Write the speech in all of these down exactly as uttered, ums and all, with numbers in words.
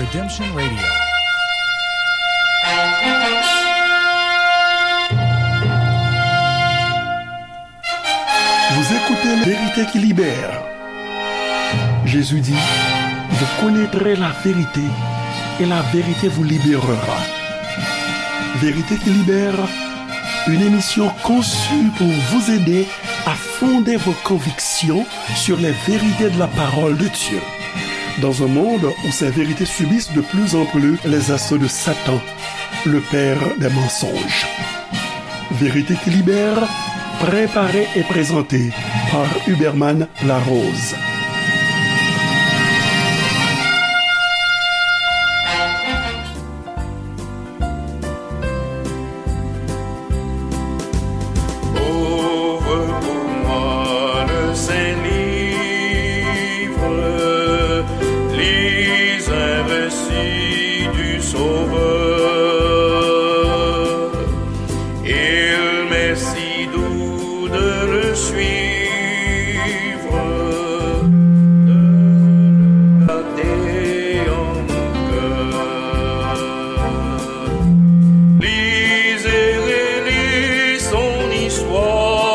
Redemption Radio. Vous écoutez Vérité qui libère. Jésus dit, vous connaîtrez la vérité et la vérité vous libérera. Vérité qui libère, une émission conçue pour vous aider à fonder vos convictions sur les vérités de la parole de Dieu. Dans un monde où ces vérités subissent de plus en plus les assauts de Satan, le père des mensonges. Vérité qui libère, préparée et présentée par Huberman Larose. Ouvre pour moi le Saint-Livre, lis un récit du Sauveur. Il m'est si doux de le suivre, de le garder en mon cœur. Lis et relis son histoire,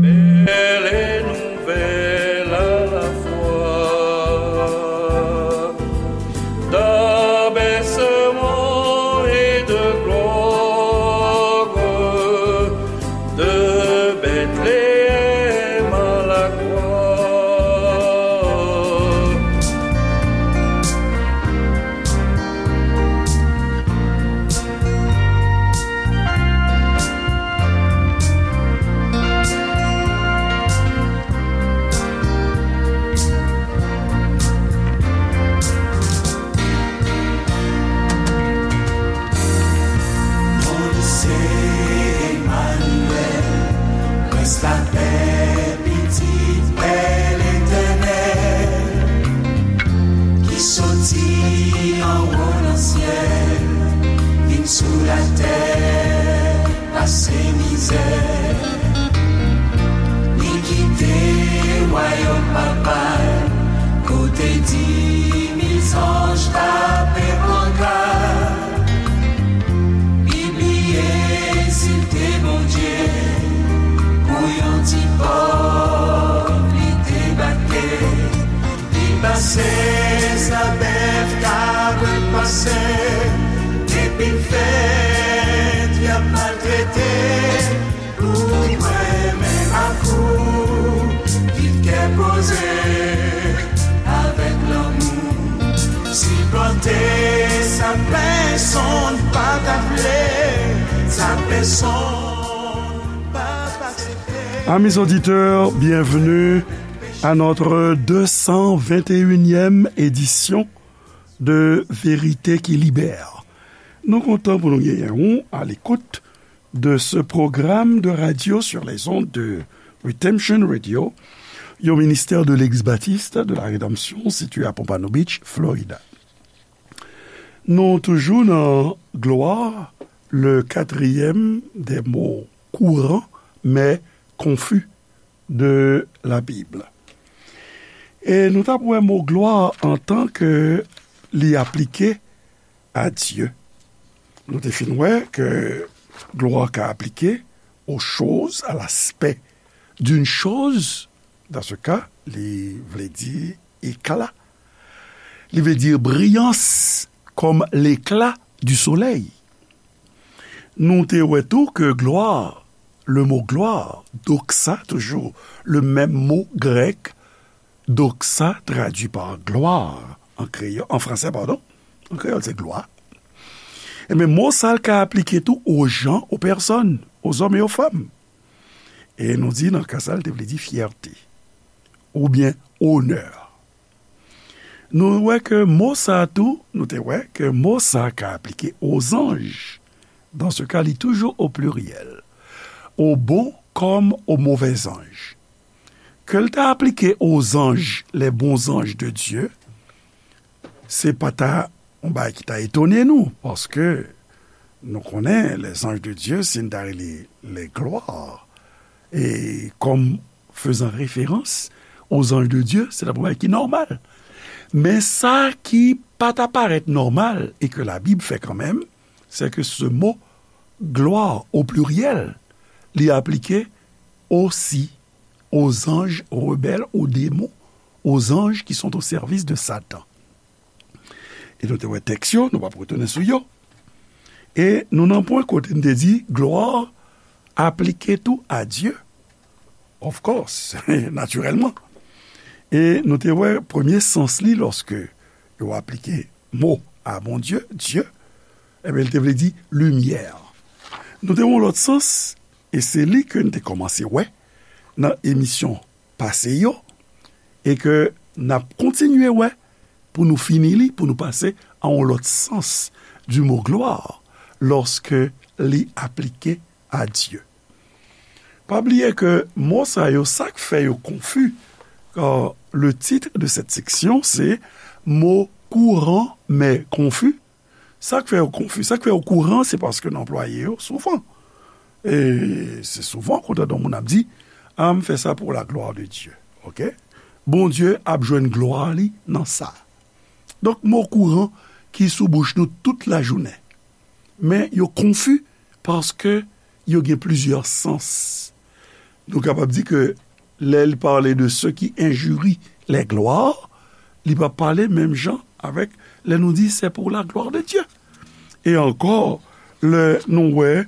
belle et nouvelle à la fois. D'abaissement et de gloire, de Bethléem à la croix. Non li se Emanyèl, Prens lapè, Pitit Pè Letènèl, ki soti anwo nan syèl, vin sou latè. Pase mizè, li kite wayòm papa l, kote di mil zanj pa pe pran ka. Li bliye si l te Bondye, pou yon ti pòv li debake. Li pase sa bèf, kabrit pase, epi l fè dyab maltrete. Pou mwen menm ak ou, viv kè poze, avèk lanmou, sipòte sa pèsonn pa ta vle, sa pèsonn pa t aksepte. Amis auditeurs, bienvenue à notre deux cent vingt et unième édition de Vérité qui Libère. Nou kontan pou nou genyen ou à l'écoute de ce programme de radio sur les ondes de Redemption Radio, yon ministère de l'Église baptiste de la Rédemption située à Pompano Beach, Florida. Nou toujou nan glwa, le quatrième des mots courants, mais confus de la Bible. E nou t ap wè mo glwa antan ke li aplike à Dieu. Nou te fin wè ke glwa ka aplike aux choses, à l'aspect d'une chose. Dans ce cas, li vle di éclat. Li vle di briyans, comme l'éclat du soleil. Nou te wè tou ke glwa, le mot gloire, doxa, toujours le même mot grec, doxa traduit par gloire en créole, en français, pardon, en créole, c'est gloire. Ebyen, mo sa l ka aplike tou aux gens, aux personnes, aux hommes et aux femmes. E nou di, nan ka sa, l te vle di fyète, oubyen onè. Nou wè ke mo sa a tou, nou te wè ke mo sa a ka aplike aux anges. Dans ce cas, li toujou au pluriel. Aux bons comme aux mauvais anges. Ke l ta aplike aux anges, les bons anges de Dieu, se pa ta yon bagay ki ta etone nou, paske nou konnen les anges de Dieu, si n ta rele les gloires, e comme faisant référence aux anges de Dieu, se ta yon bagay ki nòmal. Men sa ki pa ta parèt nòmal e ke Labib fè kanmenm, se ke se mo glwa o pliryèl, li aplike osi o zanj rebèl, o demon, o zanj ki sont au service de Satan. E nou te wè tèks yo, nou p ap retounen sou yo. E nou nan pwen kote n te di glwa aplike tou a Dye. Of course, natirèlman. E nou te wè premye sans li lòske yo aplike mo a Bondye, Dye, ebyen, li te vle di limyè. Nou te wè yon lòt sans, e se li ke n te kòmanse wè nan emisyon pase yo, e ke n ap kontinye wè pou nou fini li, pou nou pase a yon lòt sans du mot gloire, lòske li aplike a Dye. Pa bliye ke mo sa yo, sa k fè yo konfi, euh, le titre de cette section, se mo kouran men konfi. Sa k fè yo konfi, sa k fè yo kouran, se paske n anplwaye yo souvan. E se souvan, kote yon moun ap di, a, m fè sa pour la gloire de Dieu. Oke? Bondye ap jwenn glwa li nan sa. Donk, mo kouran ki sou bouch nou tout lajounen. Men yo konfi paske yo gen plizyè sans. Nou kapab di ke lè l pale de ceux qui injurient les gloires, li pa pale menm jan avèk lè nou di c'est pour la gloire de Dieu. E ankò, lè nou wè,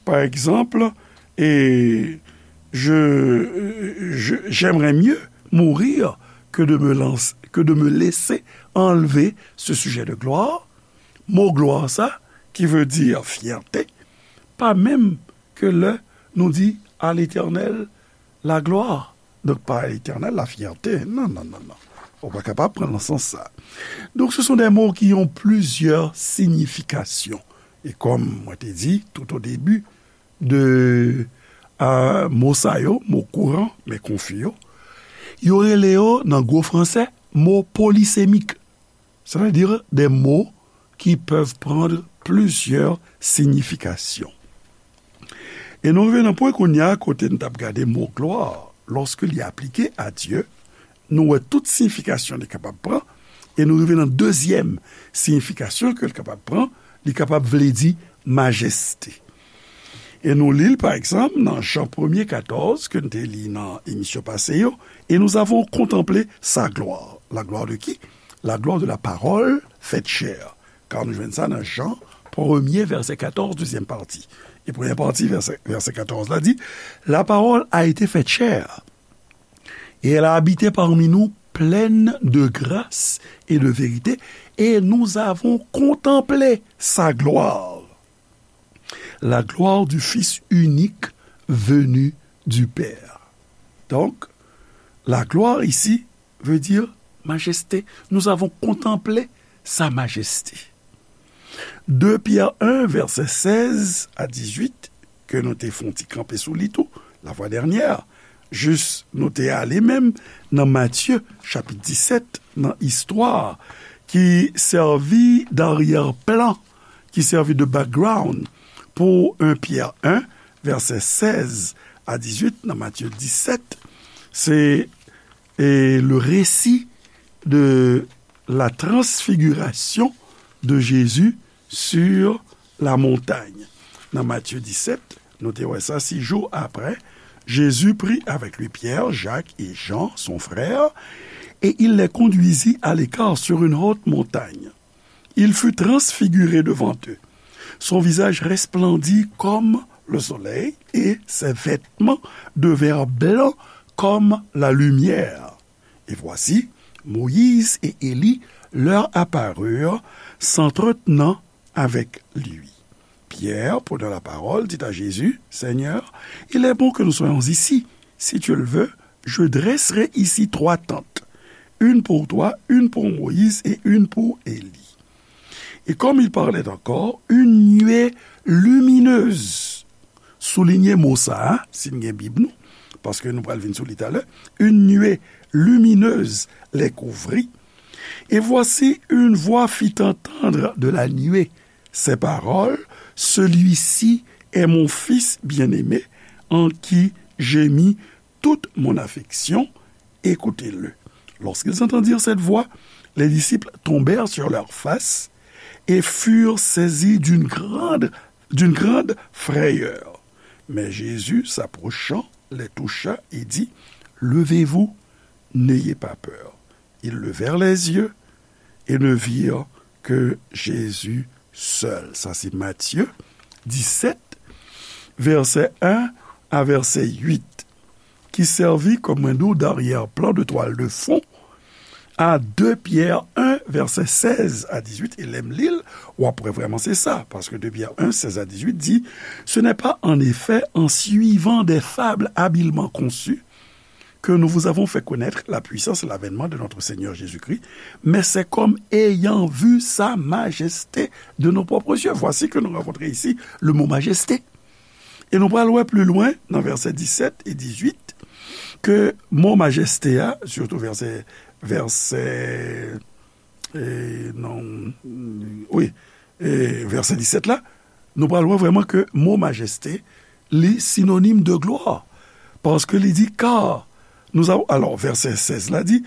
pa egzanp, e je, je, j'aimerais mieux mourir que de me lancer, que de me laisser enlever ce sujet de gloire. Mo glwa sa, ki vle di fyète, pa menm ke lè nou di à l'Éternel la gloire. Donk, pa à l'Éternel la fierté. Non, non, non, non. Ou pa kapab pran nan sans sa. Donk, ce sont des mots qui ont plusieurs significations. E kòm mwen te di tout au début de, euh, mo sa yo, mo kouran, men konfi yo, yo rele yo nan gwo fransè mo polysémique. C'est-à-dire des mots qui peuvent prendre plusieurs significations. E nou rive nan pwen kounye a kote n t ap gade mo glwa, lòske li aplike a Dye, nou wè tout siyifikasyon li kapab pran, e nou rive nan dezyèm siyifikasyon ke l kapab pran, li kapab vle di majeste. E nou li l, pa egzanp, nan Jan premye katòz, ke n te li nan emisyon pase yo, et nous avons contemplé sa gloire. La gloire de qui? La gloire de la parole faite chair. Car nou jwenn sa nan Jan premye, vèsè katòz, dezyèm pati. E premyè pati, vèsè, vèsè katòz la di, la parole a été faite chair, et elle a habité parmi nous, pleine de grâce et de vérité, et nous avons contemplé sa gloire, la gloire du Fils unique venu du Père. Donc, la gloire ici veut dire majesté. Nous avons contemplé sa majesté. Deux Pierre un, vèsè sèz a dizuit, ke nou te fè yon ti kanpe sou li tou, la fois dernière, jis nou te ale menm nan Matye, chapit disèt, nan istwa ki sèvi d'aryè plan, ki sèvi de background pou un Pierre un, vèsè sèz a dizuit, nan Matye disèt, se, e, le récit de la transfiguration de Jésus sur la montagne. Nan Matye disèt, nou te wè sa, six jours après, Jésus prit avec lui Pierre, Jacques et Jean, son frère, et il les conduisit à l'écart sur une haute montagne. Il fut transfiguré devant eux. Son visage resplendit comme le soleil, et ses vêtements devinrent blancs comme la lumière. Et voici, Moïse et Élie leur apparurent, s'entretenant avec lui. Pierre, prenant la parole, dit à Jésus, Seigneur, il est bon que nous soyons ici. Si tu le veux, je dresserai ici trois tentes, une pour toi, une pour Moïse et une pour Élie. Et comme il parlait encore, une nuée lumineuse, souligne mo sa a, si n gen Bib nou, paske nou pral vin sou li talè, une nuée lumineuse les couvrit. Et voici, une voix fit entendre de la nuée ces paroles, celui-ci est mon Fils bien-aimé, en qui j'ai mis toute mon affection, écoutez-le. Lorsqu'ils entendirent cette voix, Les disciples tombèrent sur leur face et furent saisis d'une grande, d'une grande frayeur. Mais Jésus, s'approchant, les toucha et dit, Levez-vous, n'ayez pas peur. Ils levèrent les yeux et ne virent que Jésus seul. Sa se Matye disèt, vèsè en a vèsè uit, ki sèvi kòm, mwen di w, daryè plan de twal de fon a de Pyè en, vèsè sèz a dizuit, e lè m li l, w ap wè vrèman se sa, paske de Pyè en, sèz a dizuit di, Ce n'est pas en effet en suivant des fables habilement conçues que nous vous avons fait connaître la puissance et l'avènement de notre Seigneur Jésus-Christ, mais c'est comme ayant vu sa majesté de nos propres yeux. Voici que nous rencontrons ici le mot majesté. E nou pral wè pli lwen nan vèsè disèt e dizuit ke mo majeste a, sitou vèsè, vèsè, e, non, wi, e, vèsè disèt la, nou pral wè vrèman ke mo majeste, li sinonim de glwa. Paske li di, car nous avons, alors, vèsè sèz la di,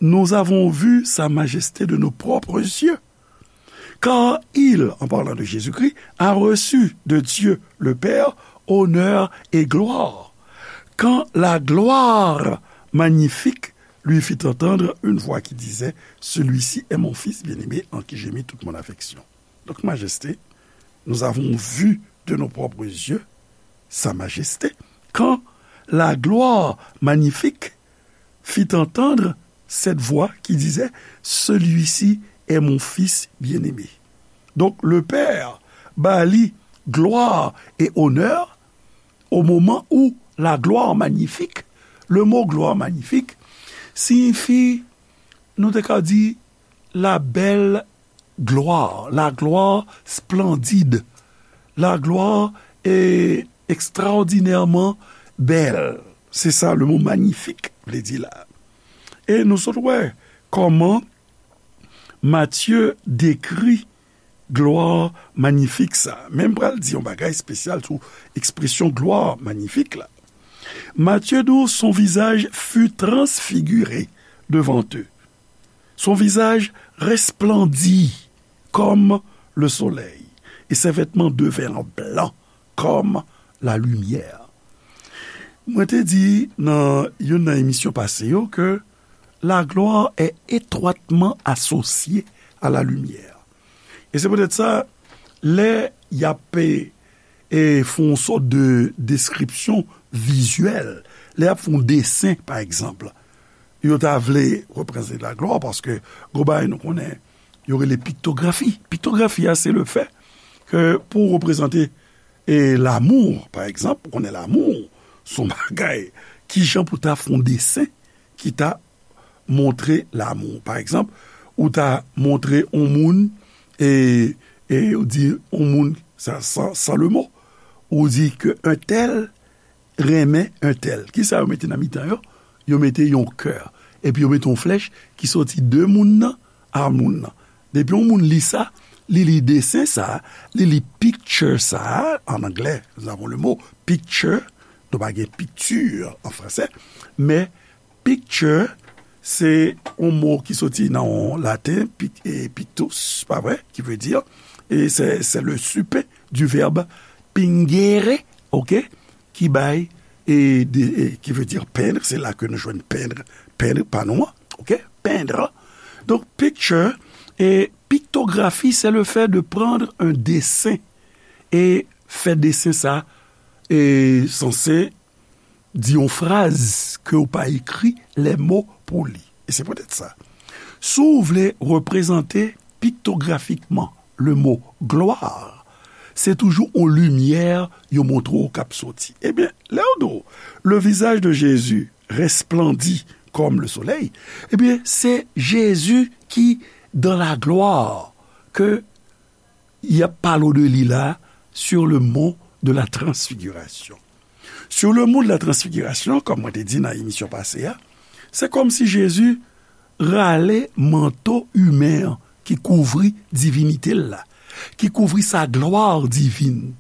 nous avons vu sa majesté de nos propres yeux. Car il, en parlant de Jésus-Christ, a reçu de Dieu le Père honneur et gloire. Quand la gloire magnifique lui fit entendre une voix qui disait, Celui-ci est mon Fils bien-aimé en qui j'ai mis toute mon affection. Donc, majesté, nous avons vu de nos propres yeux sa majesté. Quand la gloire magnifique fit entendre cette voix qui disait, Celui-ci est mon Fils bien-aimé. Donk, Lepè ba li glwa e onè o moman ou la glwa manyifik. Le mo glwa manyifik siyifi, nou te ka di, la bèl glwa, la glwa splandid, la glwa e ekstraòdinèman bèl. Se sa le mo manyifik vle di la. E nou sot wè kòman Matye dekri glwa manyifik sa. Men m pral di yon bagay espesyal sou ekspresyon glwa manyifik la. Matye di w, son visage fut transfiguré devant eux. Son visage resplendit comme le soleil, et ses vêtements devinrent blancs comme la lumière. Mwen te di nan youn nan emisyon pase yo ke la gloire est étroitement associée à la lumière. E se poutèt sa, lè y ap, e, e, fè yon sòt de deskripsyon vizyèl, lè y ap fè yon desen, pa egzanp, yo ta vle reprezante la gloire, paske gon bagay nou konnen, yo rele piktografi. Piktografi a, se le fè ke pou w reprezante, e, lanmou, pa egzanp, ou konnen lanmou, se yon bagay, kijan pou ta fè yon desen ki ta montre lanmou. Pa egzanp, ou ta montre yon moun, e, e ou di yon moun, sa, san, san le mo, ou di ke un tel renmen un tel. Kisa yo mete nan mitan yo? Yo mete yon kè. Epi yo mete yon flèch ki soti de moun nan a moun nan. Depi yon moun li sa, li li desen sa, li li picture sa, an anglè, nous avons le mot picture, nou pa gen picture an fransè, men picture, se yon mo ki soti nan yon laten, pic-, e pictus, pa vre, ki vle di, e se, se le supe du verbe pingere, oke, ki bay, e, de, e, ki vle di peindre, se la ke nou jwenn peindre, peindre, pa nou an, oke, peindre. Donk, picture, e piktografi, se le fè de prendre un dessin, e fè desen sa, e sanse di yon fraz ke w pa ekri lè mo pou li. E se poutèt sa, si w vle reprezante piktografikman le mo gloire, se toujou yon limyè yo montre w k ap soti. Ebyen, lè yo di w, le visage de Jésus resplendit comme le soleil, ebyen, se Jezi ki dans la gloire ke y ap pale w de li la, sur le mont de la transfiguration. Sur le mont de la transfiguration, kòm mwen te di nan emisyon pase a, se kòmsi Jezi rale manto imen an ki kouvri divinite l la, ki kouvri sa glwa divin,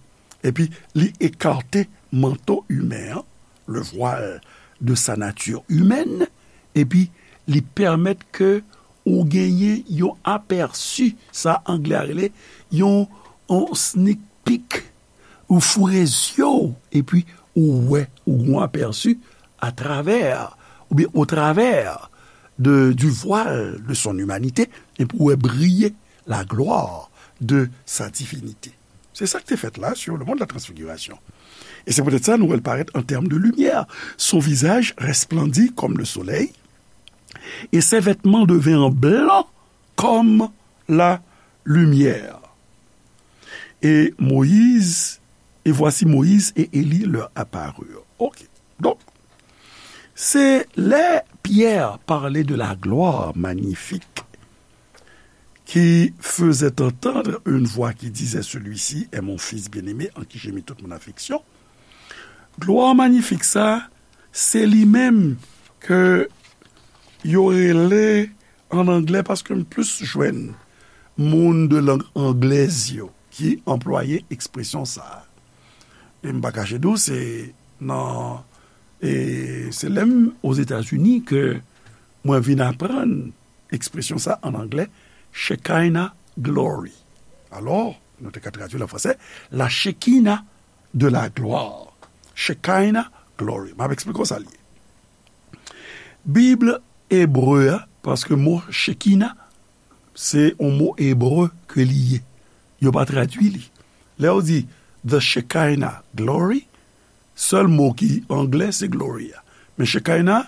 epi li ekate manto imen an, le voile de sa nature humaine, epi li pèmèt ke ou genyen yon apèsi, sa anglè a rele yon, yon sneak peek, ou foure zye w, epi ou wè, ou gon apèsi à travers, ou bien au travers de, du voile de son humanité, epi ou wè briye la gloire de sa divinité. Se sa ki te fèt la sur le mont de la transfiguration. Et c'est peut-être ça, nou wè l parèt en termes de lumière. Son visage resplendit comme le soleil, et ses vêtements devinrent blancs comme la lumière. Et Moïse, et voici Moïse et Élie leur apparurent. Ok. Donc, c'est là Pierre parlait de la gloire magnifique qui faisait entendre une voix qui disait, celui-ci est mon fils bien-aimé, en qui j'ai mis toute mon affection. Glwa manyifik sa, se li menm ke yo rele an anglè, paske m plis jwenn moun de lang anglèz yo ki anplwaye ekspresyon sa a. E m pa kache di w, se nan, e se lè m Ozetazini ke mwen vin aprann ekspresyon sa an anglè, Shekinah glory. Alò, nou te ka tradui l an fransè, la Shekinah de la gloire. Shekinah glory. M ap eksplike w sa l ye. Bib ebre a, paske mo Shekinah, se yon mo ebre ke li ye. Yo pa tradui li. Lè yo di the Shekinah glory, sèl mo ki anglè se glory a. Men Shekinah,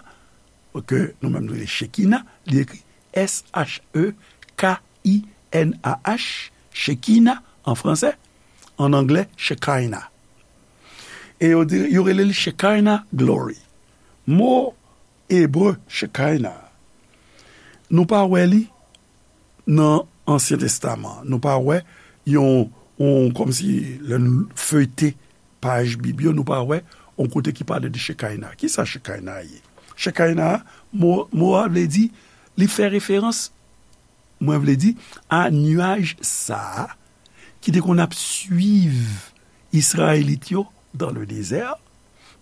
ke nou menm nou rele Shekinah, li ekri S H E K I N A H, Shekinah an fransè, an anglè Shekinah. E yo di, yo rele l Shekinah glory. Mo ebre Shekinah, nou pa wè li nan Ansyen Testaman. Nou pa wè yon, yon, kòmsi lè nou feyte paj Bib yo, nou pa wè yon kote ki pale de Shekinah. Kisa Shekinah ye? Shekinah, mo, mo a vle di, li fè referans, mwen vle di, a nyaj sa a ki te konn ap swiv Izrayelit yo dans le désert,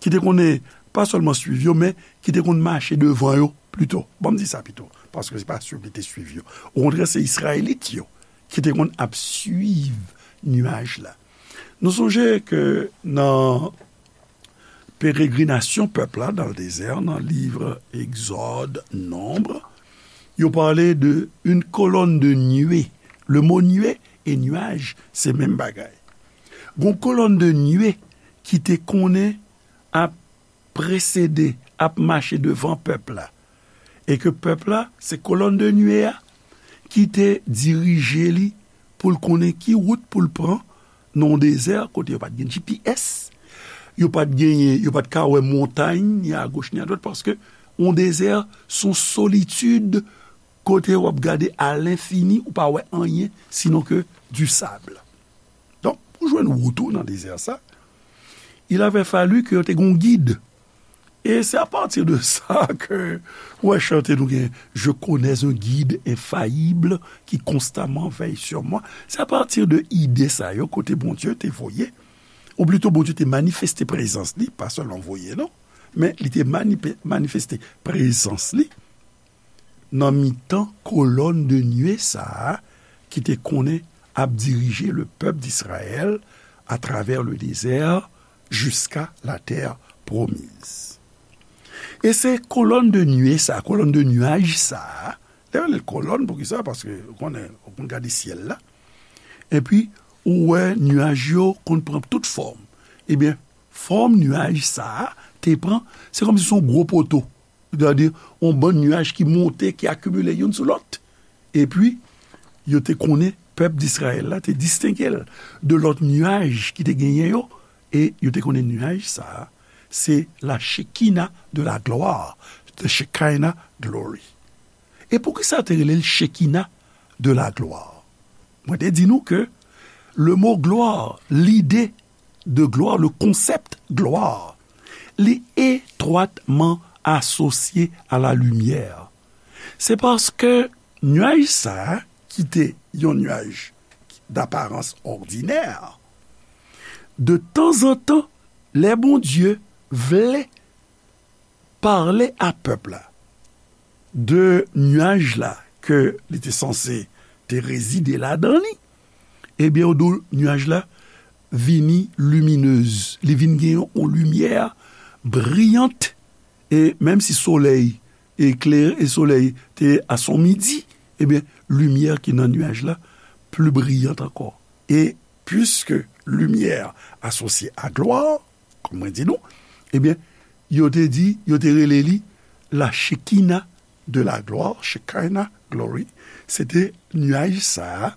ki te konnen pa sèlman swiv yo, men ki te konn mache devan yo pito. Bon, m di sa pito, paske se pa swiv li te swiv yo. Okontrè, se Izrayelit yo ki te konn ap swiv nyaj la. Nou sonje ke nan peregrinasyon pèp la dans le désert, nan liv Egzòd, Nonb, yo pale de une colonne de nuée. Le mo nuée e nyaj, se menm bagay. Gon kolòn de nuée ki te konnen ap presede, ap mache devan pèp la. E ke pèp la, se kolòn de nuée a ki te dirije li pou l konnen ki wout pou l pran nan yon dezè kote yo pa t gen G P S, yo pa t genyen, yo pa t ka wè montay, ni a goch ni a dwat, paske yon dezè se yon solitid kote w ap gade a lenfini, ou pa wè anyen sinon ke du sable. Donk, pou jwenn wout ou nan dezè sa, il avait fallu ke yo te gen yon gid. E se apati de sa ke, ou wè, chante nou gen, Je connais un guide infaillible qui constamment veille sur moi. Se apati de ide sa yo, kote Bondye te voye, ou plito Bondye te manifeste prezans li, pa sèlman voye, non, men li te manipe-, manifeste prezans li nan mitan kolòn de nuée sa a ki te konnen ap dirije le pèp d'Israël à travers le désert jusqu'à la terre promise. E se kolòn de nuée sa a, kolòn de nyaj sa a, lè yo rele l kolòn, poukisa? Paske, ou konnen, ou konn gade syèl la, epi ou wè nyaj yo konn pran tout fòm. Ebyen, fòm nyaj sa a te pran, se kòmsi se yon gwo poto. Sètadi, yon bann nyaj ki monte, ki akimile youn sou lòt. Epi, yo te konnen pèp Dizrayèl la te distenge l de lòt nyaj ki te genyen yo, e yo te konnen nyaj sa a, se la Shekinah de la gloire, the Shekinah glory. E poukisa yo te rele l Shekinah de la gloire? Mwen te di nou ke le mo gloire, lide de gloire, le concept gloire, li etwatman asosye a la limyè. Se paske nyaj sa a, ki te yon nyaj d'aparans òdinè, de tanzantan, lè Bondye vle pale a pèp la de nyaj la ke li te sanse te rezide ladan li, ebyen, yo di w, nyaj la vini liminez. Li vin gen yon limyè briyant, e menm si solèy eklere, e solèy te a son midi, ebyen, limyè ki nan nyaj la pli briyant ankò. E piske limyè asosye a glwa, kòm mwen di nou, ebyen, yo te di, yo te rele li la Shekina de la glwa, Shekinah glory, se te nyaj sa a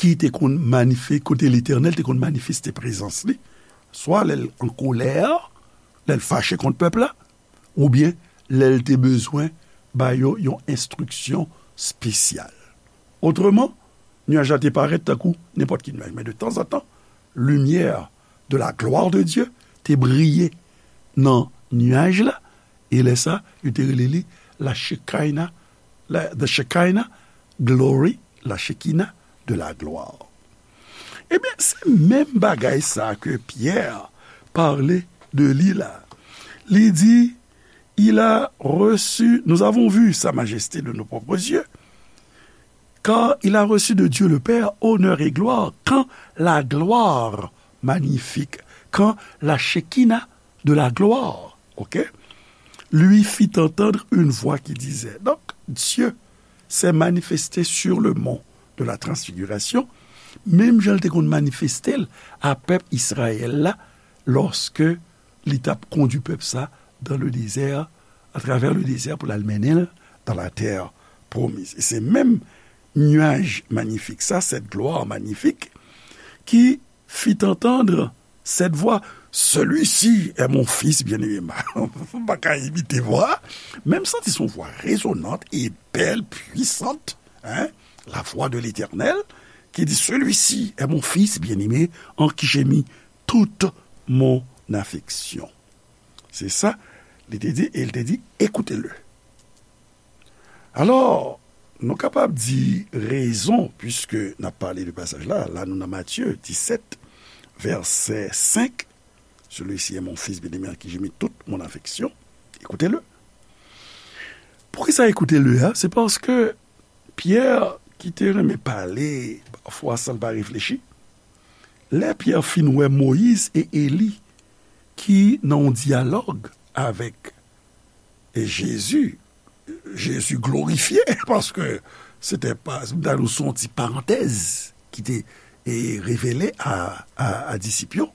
ki te konn manife-, kote Letènèl te konn manifeste prezans li, swa lè l an kolè, lè l fache kont pèp la, oubyen lè l te bezwen ba yo yon enstriksyon espesyal. Otreman, nyaj la te parèt tankou nenpòt ki nyaj, men de tanzantan, limyè de la gloire de Dieu te briye nan nyaj la, e lè sa, yo te rele li la Shekinah, la, the Shekinah glory, la Shekinah de la gloire. Ebyen, se menm bagay sa ke Pyè pale de li la. Li di, il a reçu, nous avons vu sa majesté de nos propres yeux, car il a reçu de Dieu le Père honneur et gloire, quand la gloire magnifique, quand la Shekinah de la gloire, ok, lui fit entendre une voix qui disait. Donc, Dieu s'est manifesté sur le mont de la transfiguration, menm jan l te konn manifeste l a pèp Izrayèl la, lòske li t ap kondui pèp sa dans le désert, à travers le désert pou l al mennen l dans la terre promise. E se menm nyaj manyifik sa, cette gloire magnifique, qui fit entendre cette voix, celui-ci est mon fils bien-aimé. M pa ka imite vwa, men m santi se yon vwa rezonant e bèl, puisante, hein, la voix de l'Éternel, qui dit, celui-ci est mon fils bien-aimé, en qui j'ai mis toute mon affection. Se sa li te di, e li te di, écoutez-le. Alò, nou kapab di rezon, puiske n ap pale de pasaj la, la nou nan Matye disèt, vèsè senk, celui-ci est mon fils bien-aimé en qui j'ai mis toute mon affection, écoutez-le. Poukisa écoutez-le a? Se paske Pyè, ki te renmen pale pafwa san l pa reflechi, lè Pyè fin wè Moyiz e Eli ki nan yon dyalòg avèk e Jezi, Jezi glorifye, paske se te pa, nou ta di se yon ti parantèz ki te, e, revele a, a, a disip yo,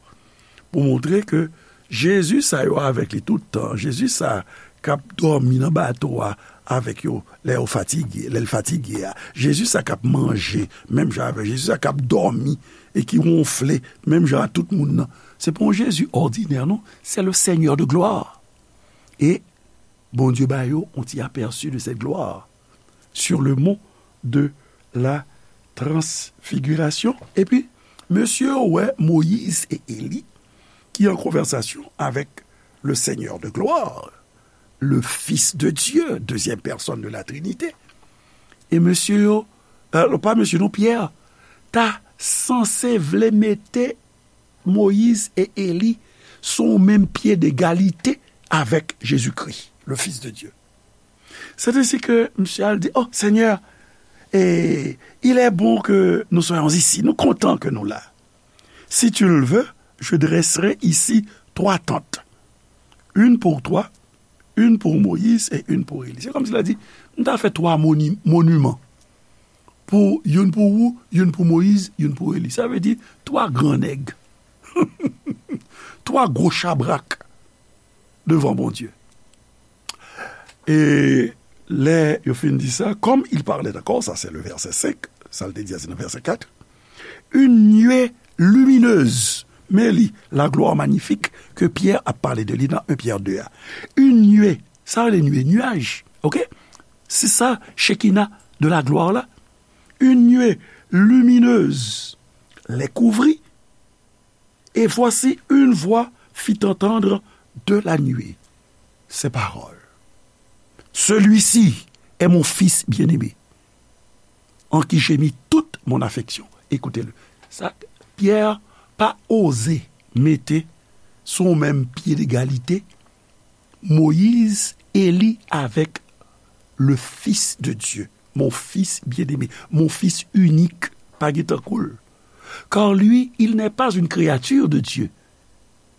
pou montre ke Jezi sa yo avèk li tout tan, Jezi sa k ap dòmi nan bato a avèk yo lè yo fatige, lè l fatige a, Jezi sa k ap manje menm jan avèk, Jezi sa k ap dòmi e ki wonfle menm jan a tout moun nan, se pa yon Jezi òdinè non, c'est le Seigneur de gloire. E Bondye ba yo yon ti apèsi de cette gloire sur le mont de la transfiguration. Epi, mesye yo wè Moyiz e Eli ki an konvèsasyon avèk le Seigneur de gloire, le Fils de Dieu, deuxième personne de la Trinité. E mesye yo, e, pa mesye non, Pyè, ta sanse vle mete Moyiz e Eli sou yon menm pye degalite avèk Jezikri, le Fils de Dieu. C'est ainsi que misye al di, oh, Seigneur, et il est bon que nous soyons ici. Nou kontan ke nou la. Si tu le veux, je dresserai ici trois tentes. Une pour toi, une pour Moïse et une pour Élie. Se kòmsi l a di, m ta fè twa moni-, moniman. Pou, youn pou ou, youn pou Moyiz, youn pou Eli. Sa vle di, twa gran nèg. Twa gwo chabrak devan Bondye. E lè yo fin di sa, comme il parlait encore, ça c'est le verset cinq, sa l te di a se nan vèsè kat, une nuée lumineuse, men li, la gloire magnifique ke Pyè ap pale de li nan un Pyè de a. Une nuée, sa rele nuée, nuage, ok? Se sa, Shekinah de la gloire la. Une nuée lumineuse les couvrit, et voici une voix fit entendre de la nuée ces paroles. Celui-ci est mon fils bien-aimé, en qui j'ai mis toute mon affection. Écoutez-le. Sa, Pyè pa oze mete sou menm pye degalite Moyiz, Eli avèk le Fils de Dieu. mon fils bien-aimé, mon fils unique, pa gen tankou l. Car lui, il n'est pas une créature de Dieu.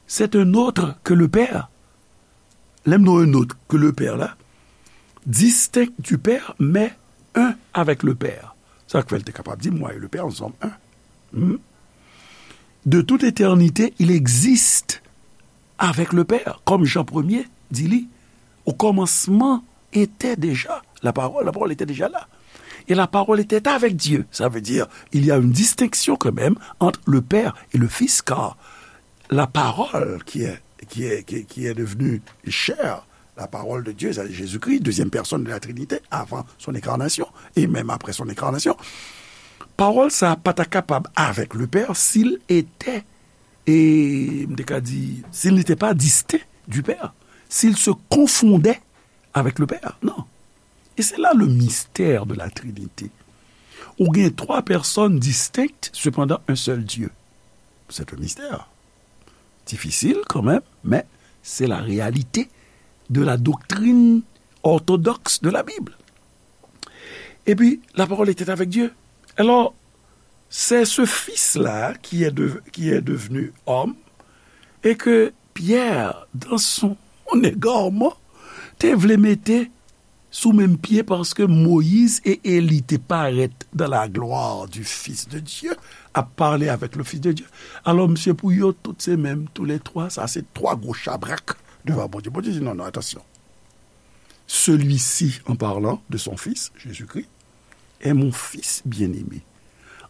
C'est un autre que le Père. Lè m di un autre que le Père la, distinct du Père, mais un avec le Père. Sa k fè l te kapab di, moi et le Père, nous sommes un. Hmm? De toute éternité, il existe avec le Père, comme Jean premier di li, au commencement était déjà la parole, la parole était déjà là. Et la parole était avec Dieu. Ça veut dire, il y a une distinction quand même entre le Père et le Fils, car la parole qui est, qui est, qui, qui est devenue chair, la parole de Dieu, c'est Jésus-Christ, deuxième personne de la Trinité, avant son incarnation, et même après son incarnation. Pawòl sa a pa ta kapab avec le Père s'il était, et, m te ka di, s'il n'était pas distinct du Père, s'il se confondait avec le Père. Non. Et c'est là le mystère de la Trinité. Ou gen trois personnes distinctes, cependant un seul Dieu. C'est un mystère. Difisil kanmenm, men se la réalité de la doctrine orthodoxe de la Bible. Et puis, la parole était avec Dieu. Alors, c'est ce Fils-là qui est de- qui est devenu homme et que Pierre, dans son égarement, te vle mete sou menm pye, paske Moyiz e Eli te parèt dans la gloire du Fils de Dieu, ap pale avec le Fils de Dieu. Alò, misye, pou yo, tout se menm, tous les trois, sa se twa gwo chabrak devan Bondye. Bondye di, non, non, attention. Celui-ci, en parlant de son Fils, Jésus-Christ, est mon Fils bien-aimé,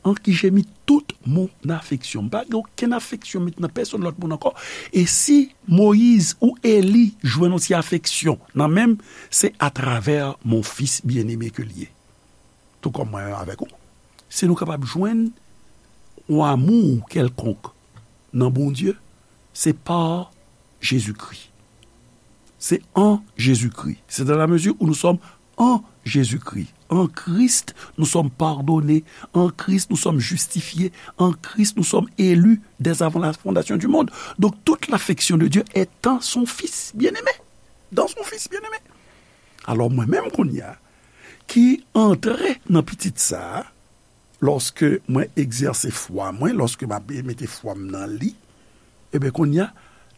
en qui j'ai mis toute mon affection. M pa gen okenn afeksyon met nan pèsonn lòt moun ankò. E si Moyiz ou Eli jwenn yon ti afeksyon nan men m, se atravè mon Fils bien-aimé ke l ye. Tou kòm mwen menm avèk ou. Si nou kapab jwenn yon amou kèlkonk nan Bondye, se pa Jezikri. C'est en Jésus-Christ. C'est dans la mesure où nous sommes en Jésus-Christ. En Christ, nous sommes pardonnés. En Christ, nous sommes justifiés. En Christ, nous sommes élus dès avant la fondation du monde. Donc, toute l'affection de Dieu est en son Fils bien-aimé. Dans son Fils bien-aimé. Alò, mwen menm kounye a, ki antre nan pitit sa a, lòske mwen egzèse fwa mwen, lòske m ap mete fwa m nan li, ebyen, kounye a,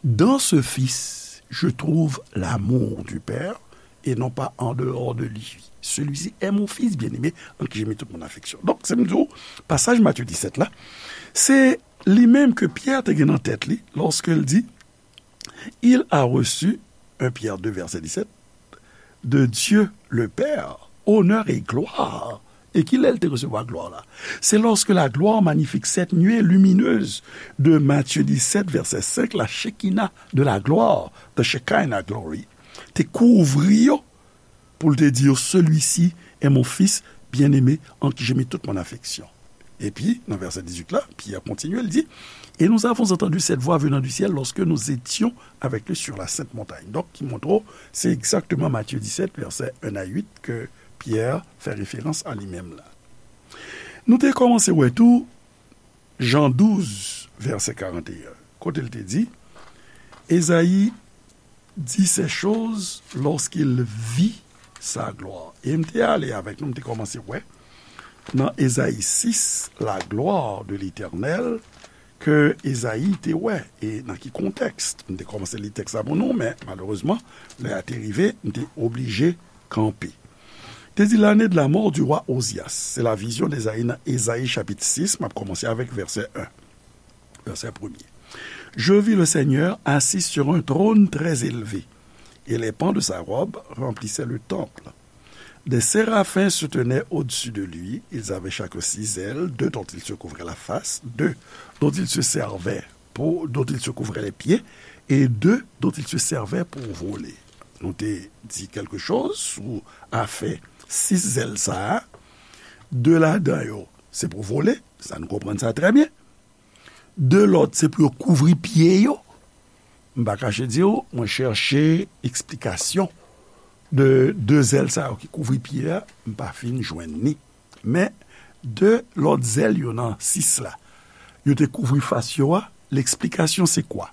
dans ce Fils, je trouve l'amour du Père, et non pas en dehors de lui. Celui-ci est mon Fils bien-aimé, en qui j'ai mis toute mon affection. Donk, se m di w, pasaj Matye disèt la, se li menm ke Pyè te gen nan tèt li, lòske l di, il a reçu, un Pierre deux, verset dix-sept, de Dieu le Père, honneur et gloire. E ki lè l te resevwa glwa la? Se lorsque la gloire magnifique, cette nuée lumineuse de Matthieu dix-sept, verset cinq, la Shekinah de la gloire, the Shekinah glory, te kouvri yo, pou l te di yo, celui-ci est mon Fils bien-aimé en qui j'ai mis toute mon affection. Epi, nan vèsè dizuit la, Pyè kontinye, l di, et nous avons entendu cette voix venant du ciel lorsque nous étions avec lui sur la sainte montagne. Donk, ki montre w, se egzakteman Matye disèt, vèsè en a uit, ke Pyè fè referans a li menm la. Nou te kòmanse wè tou, Jan douz, vèsè karanteyen, kote l te di, Ezayi dit ces choses lorsqu'il vit sa gloire. E m te ale avèk nou, m te kòmanse wè, nan Ezayi sis, la gloire de l'Éternel, ke Ezayi te wè, e nan ki kontèks. M te kòmanse li tèks la pou nou, men malerezman, lè a te rive, m te oblije kanpe. Te di, l'année de la mort du roi Ozias. Se la vizyon d'Ezayi nan Ezayi chapit sis, m ap kòmanse avèk vèsè en. Vèsè premye. Je vis le Seigneur assis sur un trône très élevé, et les pans de sa robe remplissaient le temple. Des séraphins se tenaient au-dessus de lui, ils avaient chacun six ailes, deux dont ils se couvraient la face, deux dont ils se servaient pour, dont ils se couvraient les pieds, et deux dont ils se servaient pour voler. Nou te di kèlke choz sou afè sis zèl sa a. De ladan yo, se pou vole, sa nou konprann sa trè byen. De lòt, se pou yo kouvri pye yo. M pa kache di w, mwen chèche eksplikasyon de de zèl sa yo ki kouvri pye a, m pa fin jwenn ni. Men, de lòt zèl yo nan sis la, yo te kouvri fas yo a, l'explication c'est quoi?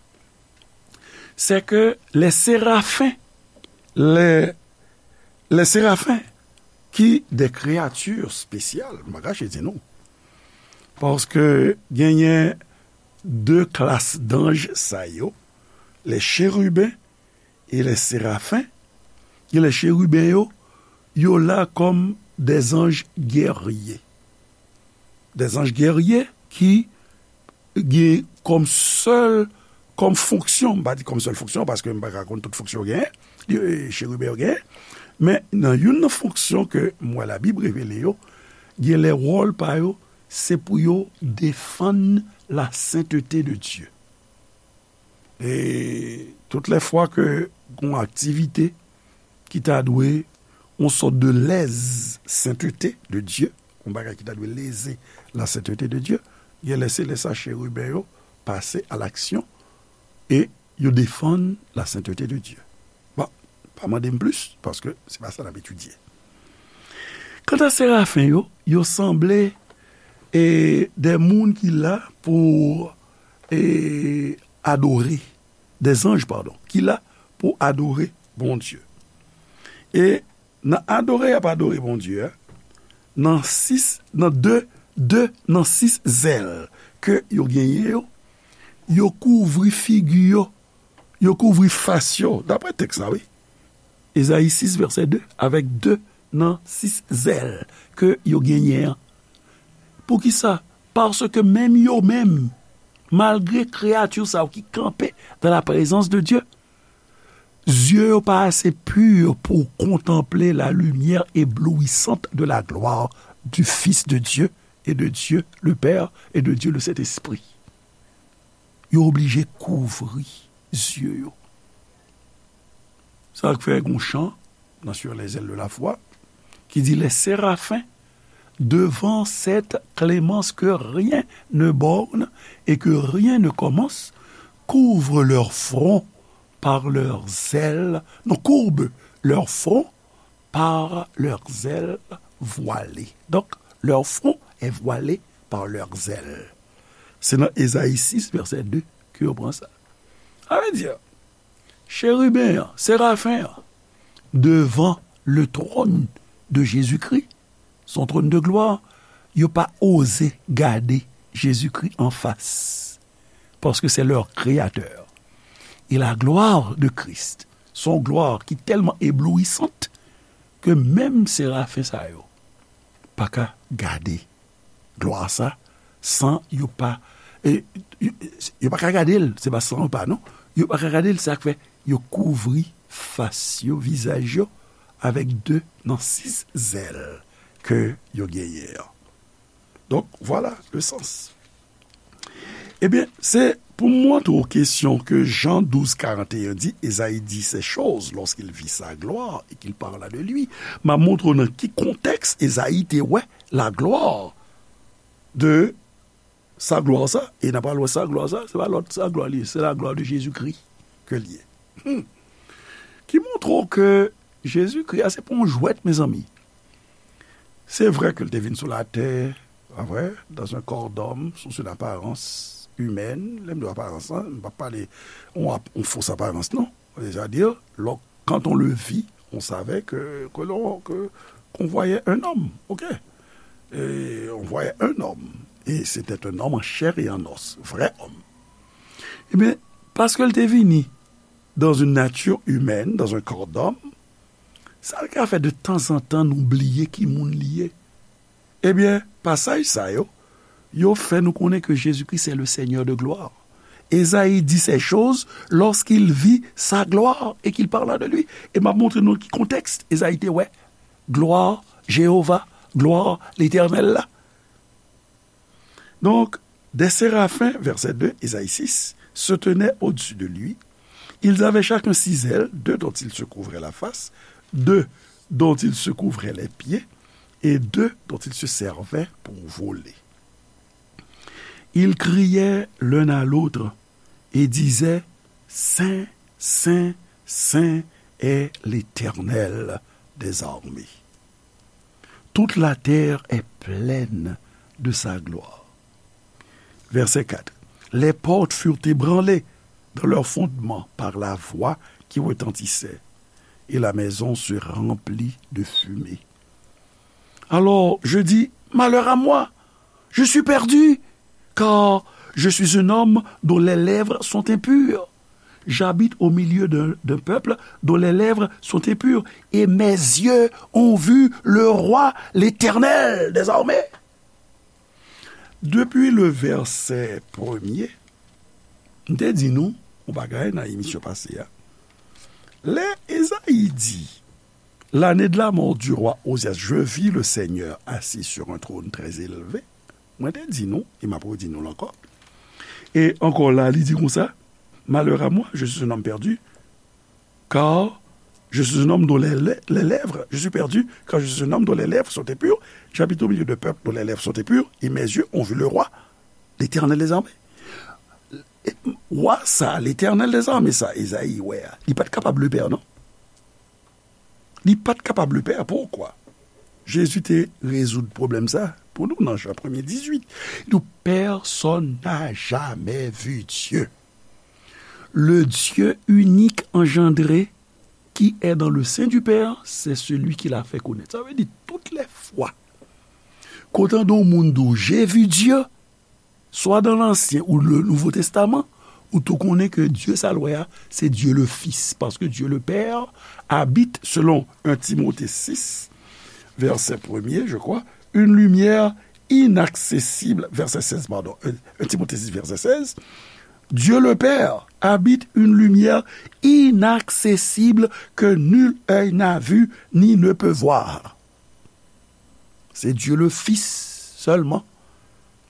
C'est que les séraphins, les, les séraphins ki de kreyati espesyal, m pa kache di nou. Paske genyen de klas danj sa yo, les chérubins et les séraphins. Gen les chérubins yo, yo la kòm des anges guerriers. Des anges guerriers ki gen kòm sèl, kòm fonksyon, m pa di kòm sèl fonksyon, paske m pa ka konn tout fonksyon yo genyen, li, e, cheriben yo genyen, men nan youn nan fonksyon ke m wè Labib revele yo, gen lè wòl pa yo, se pou yo defann la sainteté de Dieu. E tout lè fwa ke gon aktivite ki ta dwe yon sòt de lèz sainteté de Dieu, yon bagay ki ta dwe leze la sainteté de Dieu, gen lè se lè sa cheriben yo pase a laksyon e yo defann la sainteté de Dieu. Bon, pa mande m plis, paske se pa sa n ap etidye. Kanta serafen yo, yo sanble e de moun ki la pou e adore, de zanj, padon, ki la pou adore Bondye. E nan adore y ap adore Bondye a, nan sis, nan de, de nan sis zèl ke yo genyen yo, yo kouvri figi yo, yo kouvri fas yo, dapre tèks la, wi. Ezayi sis, vèsè de, avèk de nan sis zèl ke yo genyen an. Poukisa? Paske menm yo menm, malgre kreyati sa yo ki kanpe dans la présence de Dieu, zye yo pa ase pi pou kontanple la lumière éblouissante de la gloire du Fils de Dieu et de Dieu le Père et de Dieu le Saint-Esprit. Yo oblije kouvri zye yo. Sa k fè gon chan nan Sur les ailes de la foi ki di, les séraphins, devant cette clémence que rien ne borne et que rien ne commence, couvrent leur front par leurs ailes, non, courbent leur front par leurs ailes voilées. Donc, leur front est voilé par leurs ailes. Se nan Ezayi sis, vèsè de, ke yo pran sa. Sa vle di, cheriben an, serafen an, devan le trône de Jésus-Christ, son trône de gloire, yo pa oze gade Jezikri anfas, paske c'est leur créateur. Et la gloire de Christ, son gloire ki tèlman éblouissante ke menm serafen sa yo pa ka gade glwa sa san yo pa, e, yo, yo pa ka gade l, se pa san yo pa, non. Yo pa ka gade l, sa k fè yo kouvri fas yo, vizaj yo, avèk de nan sis zèl ke yo genyen an. Donk, vwala le sans. Ebyen, se pou m montre w kesyon ke Jan douz karant e en di, Esaïe dit ces choses lorsqu'il vit sa gloire et qu'il parla de lui. M ap montre w nan ki kontèks Esaïe te wè la gloire de sa glwa sa, e n ap pral wè sa glwa sa, se pa lòt sa glwa li ye, se la gloire de Jésus-Christ ke li ye. Hmm. Ki montre w ke Jezikri a se pa yon jwèt, mezanmi. Se vre ke l te vin sou latè, pa vre, dans un corps d'homme, sous une apparence humaine. Lè m di aparans lan, m p ap pale yon ap-, yon fos aparans, non. C'est-à-dire, lò-, quand on le vit, on savait que, que l'on, que, qu'on voyait un homme, ok? Et on voyait un homme. Et c'était un homme en chair et en os, vrai homme. Ebyen, paske l te vini dans une nature humaine, dans un corps d'homme, sa l ka fè de tanzantan nou bliye ki moun li ye. Ebyen, pasaj sa yo, yo fè nou konnen ke Jezikri se le Seigneur de gloire. Esaïe dit ces choses lorsqu'il vit sa gloire et qu'il parla de lui. E m ap montre nou ki kontèks Esaïe te wè glwa Jewova, glwa Letènèl la. Donc, des séraphins, verset deux, Esaïe six, se tenaient au-dessus de lui. Ils avaient chacun six ailes, deux dont ils se couvraient la face, deux dont ils se couvraient les pieds, et deux dont ils se servaient pour voler. Ils criaient l'un à l'autre et disaient, Saint, saint, saint est l'Éternel des armées. Toute la terre est pleine de sa gloire. Verset quatre. Les portes furent ébranlées dans leurs fondements par la voix qui retentissait, et la maison se remplit de fumée. Alors, je dis, malheur à moi, je suis perdu, car je suis un homme dont les lèvres sont impures. J'habite au milieu d'un d'un peuple dont les lèvres sont impures, et mes yeux ont vu le roi, l'Éternel des armées. Depi le vèsè premye, m te di nou yon bagay nan emisyon pase a. Lè Ezayi di, l'année de la mort du roi Ozias, je vis le Seigneur assis sur un trône très élevé. Mwen te di nou, e m ap redi nou l ankò. E ankò la, li di konsa, malheur à moi, je suis un homme perdu, car je suis un homme dont les, les, les lèvres, je suis perdu, car je suis un homme dont les lèvres sont impures, j'habite au milieu de peuple dont les lèvres sont impures, et mes yeux ont vu le roi, l'Éternel des armées. Wa sa, l'Éternel des armées sa, Ezayi wè a, li pa t kapab le pè, non? Li pa t kapab le pè. Poukwa? Jezi te rezoud pwoblèm sa pou nou nan Jan premye dizuit. Li di, personne n'a jamais vu Dieu. Le Dieu unique engendré qui est dans le sein du Père, c'est celui qui l'a fait connaître. Sa vle di, tout lè fwa kote yon moun di w, j'ai vu Dieu, swa dans l'Ancien ou le Nouveau Testament, ou tou konnen ke Dye sa l wè a, se Dye le Fis, paske Dye le Pè abite, selon un Timote sis, vèsè premye, je crois, une lumière inaccessible, vèsè sèz, pardon, un, un Timote sis, vèsè sèz, Dieu le Père habite une lumière inaccessible que nul œil n'a vue ni ne peut voir. Se Dieu le Fils sèlman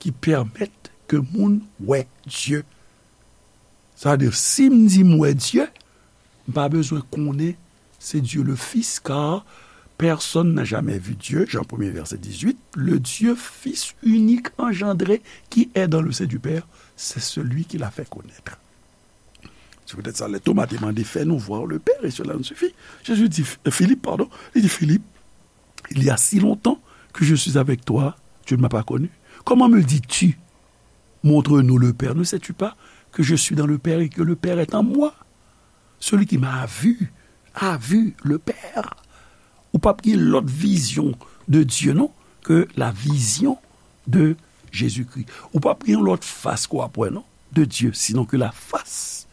ki pèmèt ke moun wè Dye. Sa vle di, si m di m wè Dye, m pa bezwen konnen se Dieu le Fils, car personne n'a jamais vu Dieu, Jean premier, verset dix-huit, le Dieu Fils unique engendré qui est dans le sein du Père, c'est celui qui l'a fait connaître. Se poutèt sa, lè Toma te mande, fais-nous voir le Père, et cela nous suffit. Jésus dit, Philippe, pardon, il dit, Philippe, il y a si longtemps que je suis avec toi, tu ne m'as pas connu. Comment me dis-tu, montre-nous le Père? Ne sais-tu pas que je suis dans le Père et que le Père est en moi? Celui qui m'a vu a vu le Père. Ou p ap gen lòt vizyon de Dye, non, ke la vizyon de Jezikri. Ou p ap gen lòt fas ke w ap wè, non, de Dye, sinon ke la fas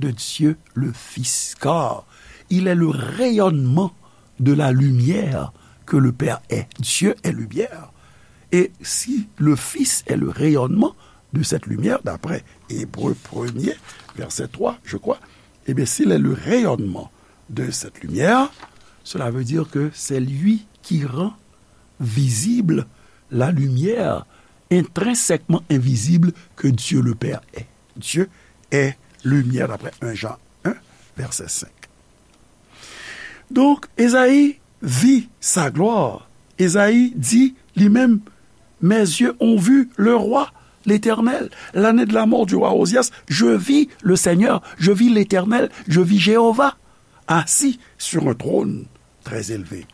de Dieu le Fils, car il est le rayonnement de la lumière que le Père est. Dieu est lumière. Et si le Fils est le rayonnement de cette lumière, d'après Hébreux premier, verset trois, je crois, eh bien, s'il est le rayonnement de cette lumière, cela veut dire que c'est lui qui rend visible la lumière intrinsèquement invisible que Dieu le Père est. Dieu est lumière, d'après un Jean un, verset cinq. Donk, Ezayi vi sa glwa. Ezayi di li menm, mes yeux ont vu le roi, l'Éternel. L'année de la mort du roi Ozias, je vis le Seigneur, je vis l'Éternel, je vis Jéhovah, assis sur un trône très élevé.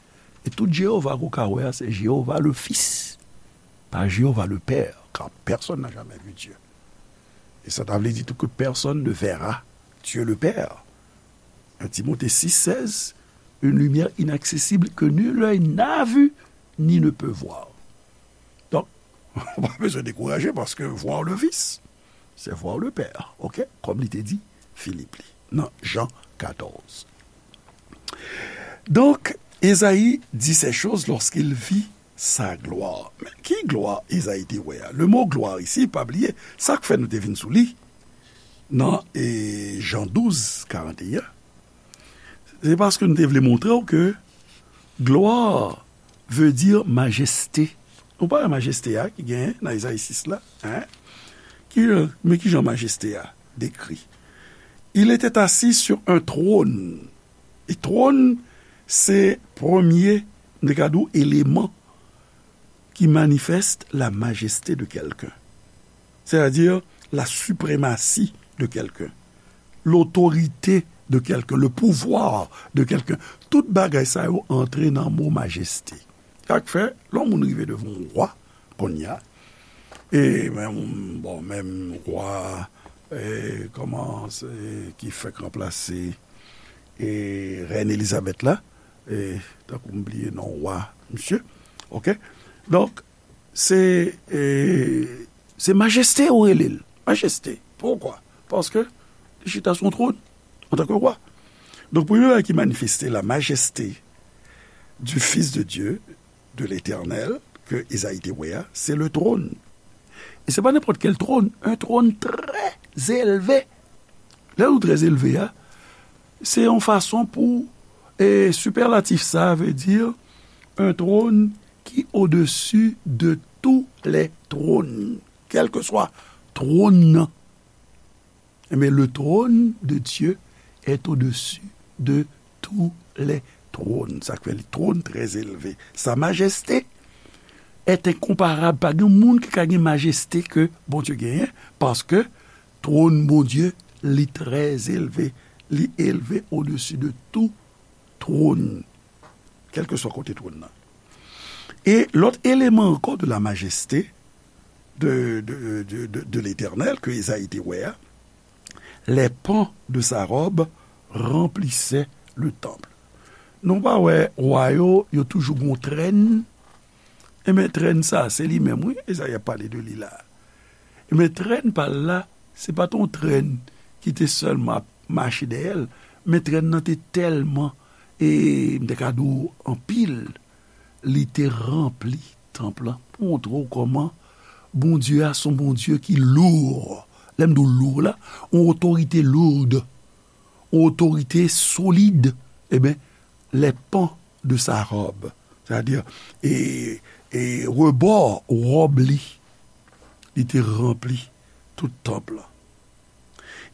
E tout Jewova ke w ka wè a, se Jewova le Fils, pa Jewova le Père, car personne n'a jamais vu Dieu. Et ça, ça veut dire tout que personne ne verra Dieu le Père. Un Timothée six seize, une lumière inaccessible que nul œil n'a vue ni ne peut voir. Donk, ou pa bezwen dekouraje, paske voir le Fils, c'est voir le Père, ok? Kòm li te di Filip li, nan Jan katòz. Donk, Ezayi dit ces choses lorsqu'il vit sa gloire. Men ki glwa Ezayi te wè a? Le mo gloire ici, pa bliye, sa k fè nou te vin sou li nan, e, Jan douz, karant e en, se paske nou te vle montre w ke gloire veut dire majesté. Ou pa wè majeste a ki genyen nan Ezayi sis la, hein? Ki, men ki jan majeste a dekri? Il était assis sur un trône. E twòn, se premye, m te ka di w, eleman ki manifeste la majesté de quelqu'un. C'est-à-dire la suprématie de quelqu'un, l'autorité de quelqu'un, le pouvoir de quelqu'un. Tout bagay sa yo antre nan mo majeste. Sa k fè, lè yon moun rive devan yon wa, kounye a, e menm, bon, menm wa, e, kòman, se, ki fèk ranplase, e, rèn Elizabèt la, e, tankou m bliye non wa misye, Ok? Donk, se, e, se majeste ou rele l. Majeste. Poukwa? Paske li chita sou yon twòn, antanke wa. Donk, premye bagay ki manifeste la majeste du Fils de Dieu, de l'Éternel, ke Ezayi te wè a, se le trône. E se pa nenpòt kèl twòn, un trône très élevé. Lè nou trè elve a, se yon fason pou, e, sipèlatif sa vle di un trône qui au-dessus de tous les trônes. Kèlkeswa twòn nan. Ebyen, le trône de Dieu est au-dessus de tous les trônes. Sa k fè li trône très élevé. Sa majeste est incomparable. Pa gen moun ki ka gen majeste ke Bondye genyen, paske twòn Bondye, li trè elve. Li elve odesi de tou twòn, kèlkeswa kote twòn nan. E lòt eleman ankò de la majeste de, de, de, de, de Letènèl ke Ezayi te wè a, les pans de sa robe remplissaient le temple. Nou pa wè wa yo, yo toujou gon trèn? Enben, trèn sa, se li menm, wi, Ezayi ap pale de li la. Enben, trèn pa l la, se pa t yon trèn ki te sèlman ap mache dèyè l, men trèn nan te tèlman, e m te ka di w anpil, li te ranpli tanp lan. Pou montre w kòman Bondye a se yon Bondye ki lou. Lè m di w lou la, yon otorite loud, yon otorite solid. Enben, les pans de sa robe, sètadi, e, e rebò wòb li, li te ranpli tout tanp lan.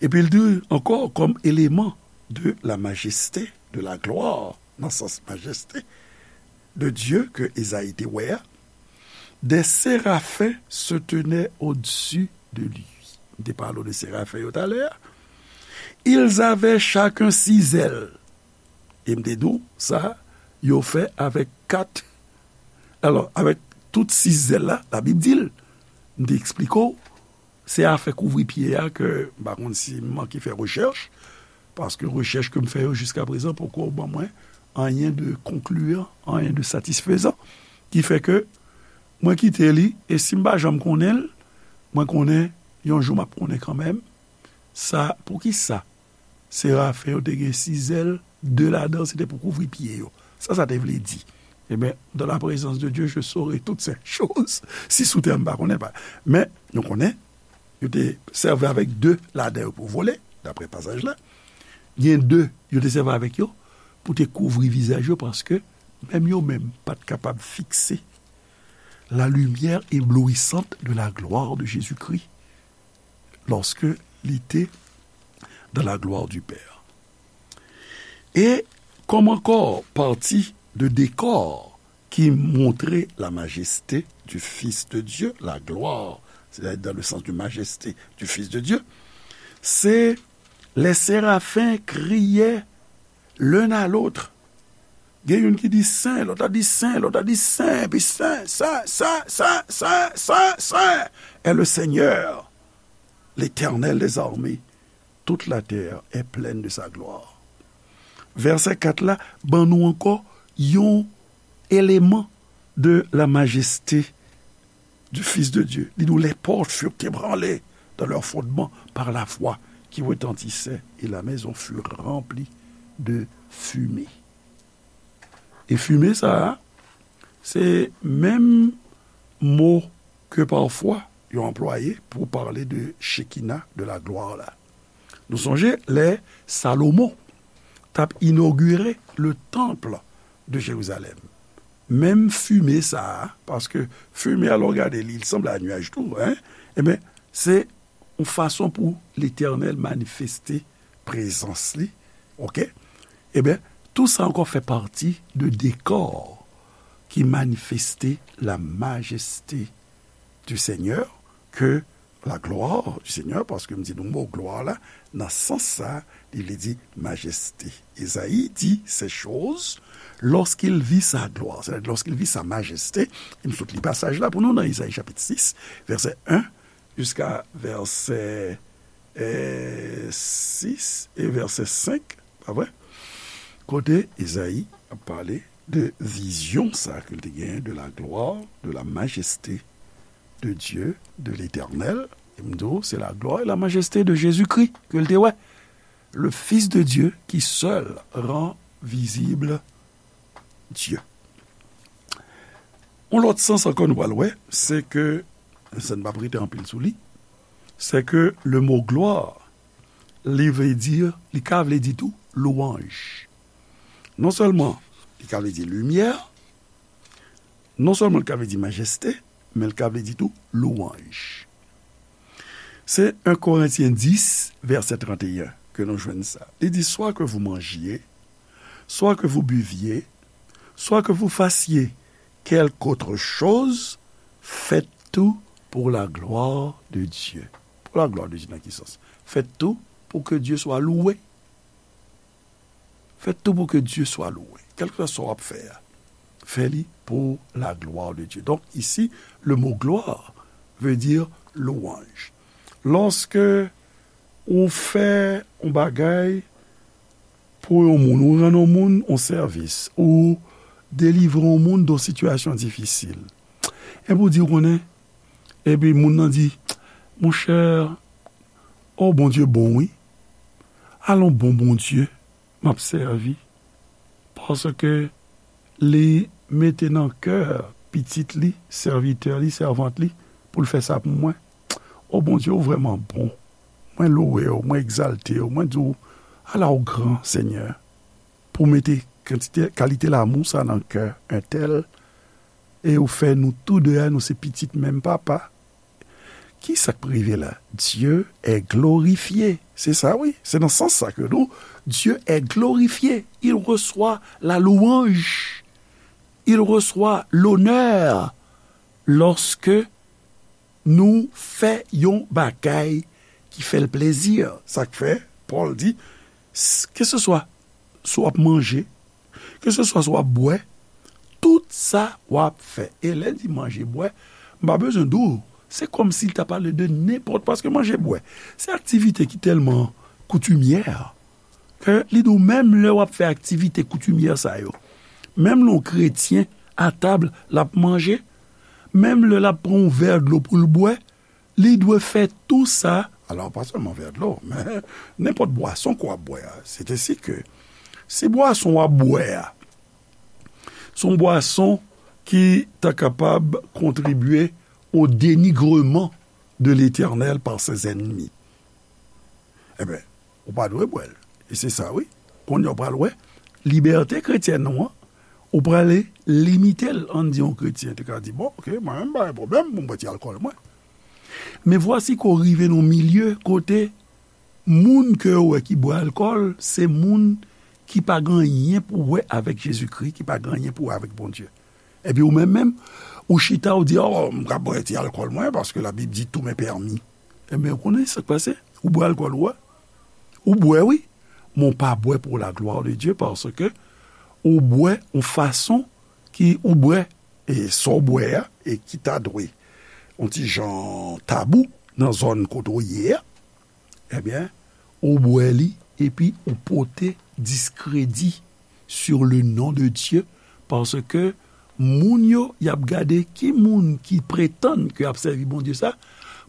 Epi l di ankò, comme élément de la majesté, de la gloire, nan sans majeste de Dieu ke Ezayi te wè a, des séraphins se tenaient au-dessus de lui. M te pale w de serafen yo talè a. Ils avaient chacun six ailes. E m te di w, sa, yo fè avèk kat. Alò, avèk tout sis zèl la, Labib di l, m te eksplike w, se afè kouvri pye a ke m pa konn si m manke fè rechèch, paske rechèch ke m fè yo jiskaprezan poko ban mwen anyen de konkliyan, anyen de satisfezan, ki fè ke mwen kite li, e si m pa janm konnen l, mwen konnen yon jou m ap konnen kanmenm, sa, poukisa serafen yo te gen sis zèl, de ladan se te pou kouvri pye yo. Sa sa te vle di? Ebyen, dans la présence de Dieu, je saurai toutes ces choses. Si sou tè m pa konnen pa. Men, nou konnen, yo te sèvi avèk de ladan yo pou vole, daprè pasaj la. Gen de, yo te sèvi avèk yo pou te kouvri vizaj yo, paske menm yo menm pa t kapab fikse la lumière éblouissante de la gloire de Jésus-Christ lorsque il était dans la gloire du Père. E kòm ankò pati de dekò ki montre la majeste du Fils de Dieu, la gloire, c'est-à-dire dans le sens de majesté du Fils de Dieu, se les séraphins criaient l'un à l'autre. Gen youn ki di sen, lòt la di sen, lòt la di sen, epi sen, sen, sen, est le Seigneur, l'Éternel des armées. Toute la terre est pleine de sa gloire. Vèsè kat la ban nou ankò yon eleman de la majeste du Fils de Dieu. Li di nou, les portes furent ébranlées dans leur fondement par la voix qui retentissait, et la maison fut remplie de fumée. E fime sa a, se menm mo ke pafwa yo anplwaye pou pale de Chekina, de la glwa la. Nou sonje lè Salomon t ap inogire le temple de Jérusalem. Menm fime sa a, paske fime a, lè w gade li, li sanble a nyaj tou, en, ebyen, se yon fason pou Letènèl manifeste prezans li, oke? Ebyen, tou sa ankò fè pati de dekò ki manifeste la majeste du Seigneur, ke la gloire du Seigneur, paske m di nou mo glwa la, nan sans sa, li vle di majeste. Ezayi di ces choses lorsqu'il vit sa gloire, c'est-à-dire lorsqu'il vit sa majesté. E m sot li pasaj la pou nou nan Ezayi chapit sis, vèsè en jiska vèsè, eh, sis e vèsè senk, pa vre? Kote Ezayi ap pale de vizyon sa ke l te genyen, de la gloire, de la majesté de Dieu, de l'Éternel. E m di w, se la gloire et la majesté de Jésus-Christ ke l te wè. Le Fils de Dieu qui seul rend visible Dieu. Yon lòt sans ankò nou pral wè, se ke, sa n p ap rete anpil sou li, se ke le mo gloire, li vle di, li ka vle di tou louanj. Non sèlman li ka vle di limyè, non sèlman li ka vle di majeste, men li ka vle di tou louanj. Se en Korentyen dis, vèsè trannteyen ke nou jwenn sa. Li di, soit que vous mangiez, soit que vous buviez, soit que vous fassiez quelque autre chose, faites tout pour la gloire de Dieu. Pour la gloire de Dieu, nan ki sans? Faites tout pour que Dieu soit loué. Faites tout pour que Dieu soit loué. Kèlkeswa sa w ap fè a, fè li pour la gloire de Dieu. Donc, ici, le mot gloire veut dire louange. Lòske ou fè yon bagay pou yon moun, ou rann yon moun yon sèvis, ou delivre yon moun de yon sitiyasyon difisil, epi ou di, ou konnen, epi moun nan di, monchè, o, Bondye bon, wi. Alon bon Bondye m ap sèvi, paske li mete nan kè pitit li, sèvitè li, sèvant li, pou l fè sa pou mwen. O Bondye, ou vrèman bon. Mwen louwe w, mwen egzalte w, mwen di w, ala w gran, Senyè, pou w mete kantite, kalite lanmou sa nan kè entèl, e ou fè nou tou de a, nou se pitit menm papa. Ki sa k rive la? Dieu est glorifié. Se sa, wi. Se nan sans sa ke nou, Dieu est glorifié. Il reçoit la louange. Il reçoit l'honneur lorsque nou fè yon bagay ki fè l plezi. Sa k fè, Pòl di, s-, keseswa si w ap manje, keseswa si w ap bwè, tout sa w ap fè. E lè l di manje, bwè, m pa bezwen di w, se kòmsi l ta pale de nenpòt, paske manje, bwè, se aktivite ki tèlman koutimyè, ke li di w menm lè w ap fè aktivite koutimyè sa yo, menm lè yon kretyen a tab, l ap manje, menm lè l ap pran yon vè dlo pou l bwè, li dwe fè tou sa, alò, pa sèlman vè dlo, men nenpòt bwason ke w ap bwè a. Sètadi ke si bwason w ap bwè a, se yon bwason ki ta kapab kontribye au dénigrement de l'Éternel par ses ennemis, enben, ou pa dwe bwè l. E se sa, wi. Kounye a w pral wè, libète kretyèn ou an, ou prale limite l. Ann di yon kretyen te ka di, bon, oke, mwen menm, m pa gen pwoblèm pou m bwè ti alkòl mwen. Men vwasi ke w rive nan yon milye kote moun ke w wè ki bwè alkòl, se moun ki pa gen anyen pou wè avèk Jezikri, ki pa gen anyen pou wè avèk Bondye. Epi ou menm menm, ou chita, ou di, o, m ka bwè ti alkòl mwen, paske Labib di tout m'est permis. Enben, ou konnen sa k pase? Ou bwè alkòl ou a. Ou bwè, wi. Men ou pa bwè pour la gloire de Dieu, paske ou bwè yon fason ki ou bwè, e sa w bwè a, e ki ta dwe yon ti jan tabou nan zòn kote w ye a, ebyen, ou bwè li, epi ou pote diskredi sur le nom de Dieu, paske moun yo, y ap gade ki moun ki pretann ke y ap sèvi Bondye sa,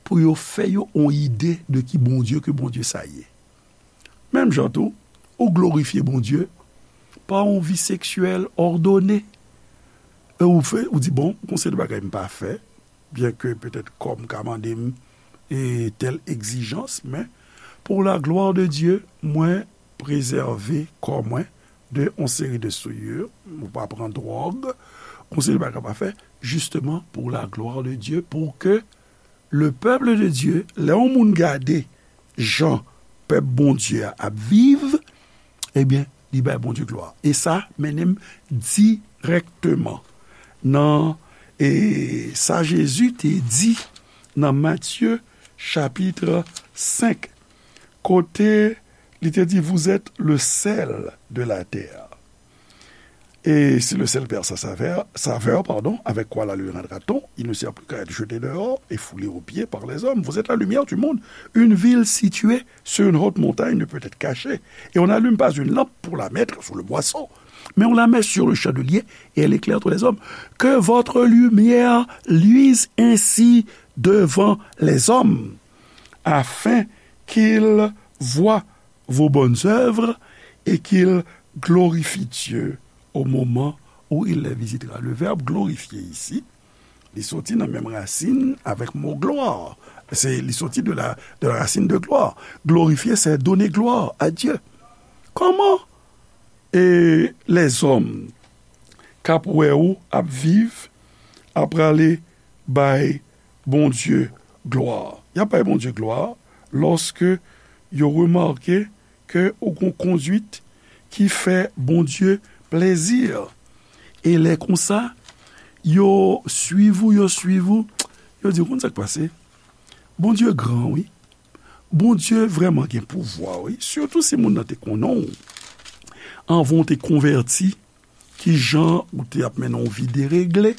pou yo fè yo yon ide de ki Bondye ke Bondye sa ye. Menm jan tou, ou glorifye Bondye pa yon vi seksyèl òdone. E ou fè, ou di, bon, gon seri de bagay m pa fè, byenke petèt kò m ka mande m, e, tèl egzijans, men pour la gloire de Dieu, mwen prezève kò mwen de yon seri de souillure, ou pa pran dwòg, yon seri de bagay pa fè, justement pour la gloire de Dieu, pou ke le peuple de Dieu, lè yon moun gade jan pèp Bondye a ap viv, ebyen, li bay Bondye glwa. E sa mennen m dirèkteman nan, e, sa Jezi te di nan Matye chapit senk, kote li te di, vous êtes le sel de la terre. Et si le sel perd sa saveur, saveur, pardon, avec quoi la lui rendra-t-on? Il ne sert plus qu'à être jeté dehors et foulé aux pieds par les hommes. Vous êtes la lumière du monde. Une ville située sur une haute montagne ne peut être cachée. Et on n'allume pas une lampe pour la mettre sous le boisseau, Mets-en la main sur le chandelier et elle éclaire tous les hommes. Que votre lumière luise ainsi devant les hommes, afin qu'ils voient vos bonnes œuvres et qu'ils glorifient Dieu au moment où il les visitera. Le verbe glorifier ici, li soti nan menm rasin avèk mo glwa. Se, li soti de la, de la racine de gloire. Glorifier, c'est donner gloire à Dieu. Kòman e lèzòm k ap wè ou ap viv, ap prale bay Bondye glwa. Y ap bay Bondye glwa lòske yo remake ke ou gon kondwit ki fè Bondye plezi. E lè konsa, yo swiv ou, yo swiv ou, yo di, ou konn sa k pase? Bondye gran, wi. Bondye vrèman gen pouvwa, wi. Sitou si moun nan te konnen w anvan w te konvèti, ki jan ou te ap mennen yon vi deregle.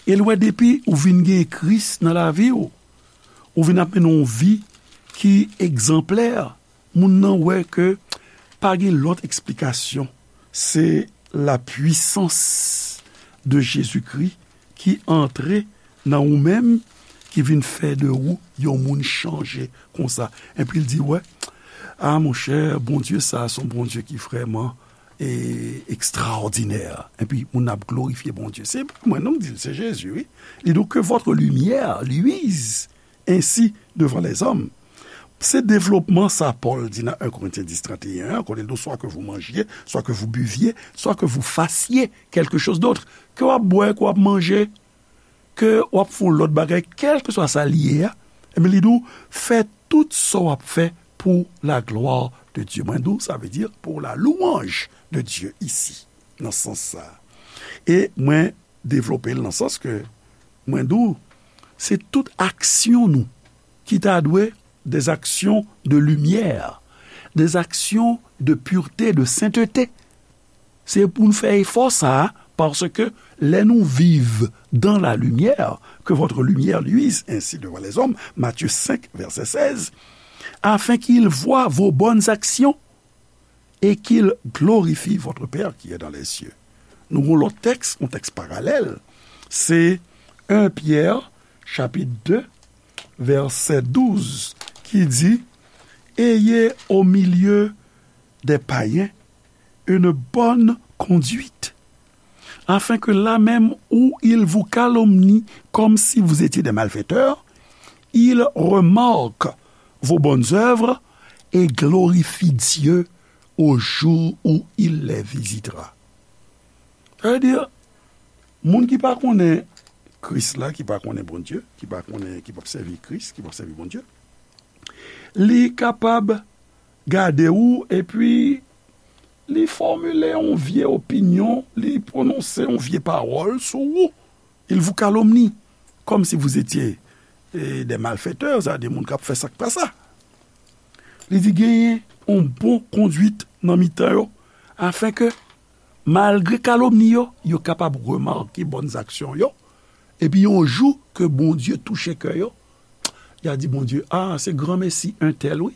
E l wè depi ou vin gen Kris nan lavi w, ou vin ap mennen yon vi ki egzanplè. Moun nan wè ke pa gen lòt eksplikasyon. Se la puissance de Jésus-Christ ki antre nan ou menm, ki vin fè de ou yon moun chanje konsa. Epi l di, wè, a monchè, Bondye sa a se yon Bondye ki vrèman e, ekstraòdinè. Epi moun ap glorifye Bondye. Se pa mwen non k di l, se Jezi, wi. Li di, que votre lumière luise ainsi devant les hommes. Se devlopman sa Pòl di nan un Corinthiens dix trente et un an, kote l di, soit que vous mangiez, soit que vous buviez, soit que vous fassiez quelque chose d'autre. Ke w ap bwè, ke w ap manje, ke w ap fè yon lòt bagay, kèlkeswa sa l ye a, ebyen, li di w, fè tout sa w ap fè pour la gloire de Dieu. Mwen di w, sa vle di pour la louange de Dieu ici, nan sans sa. E mwen devlope l nan sans ke mwen di w, se tout aksyon nou ki ta dwe des actions de lumière, des actions de pureté, de sainteté. Se pou n fè efò sa a, paske lè nou viv dans la lumière, que votre lumière luise ainsi devant les hommes, Matthieu cinq, verset seize, afin qu'ils voient vos bonnes actions et qu'ils glorifient votre Père qui est dans les cieux. Nou gon lòt tèks, yon tèks paralèl, se un Pyè, chapit de, vèsè douz, ki di, ayez au milieu des païens une bonne conduite, afin que là même où ils vous calomnient comme si vous étiez des malfaiteurs, ils remarquent vos bonnes œuvres et glorifient Dieu au jour où il les visitera. Sa vle di, moun ki pa konnen Kris la, ki pa konnen Bondye, ki pa konnen, ki p ap sèvi Kris, ki p ap sèvi Bondye, li kapab gade w epi li fòmile yon vye opinyon, li pwononse yon vye pawòl sou ou. Il vous calomnie, comme si vous étiez, eh, des malfaiteurs, sa vle di moun k ap fè sa k pa sa. Li di genyen yon bon kondwit nan mitan yo, afin ke, malgre kalomni yo, yo kapab remake bòn aksyon yo, epi yon jou ke Bondye touche kè yo, y a di Bondye, a, se granmesi entèl, wi,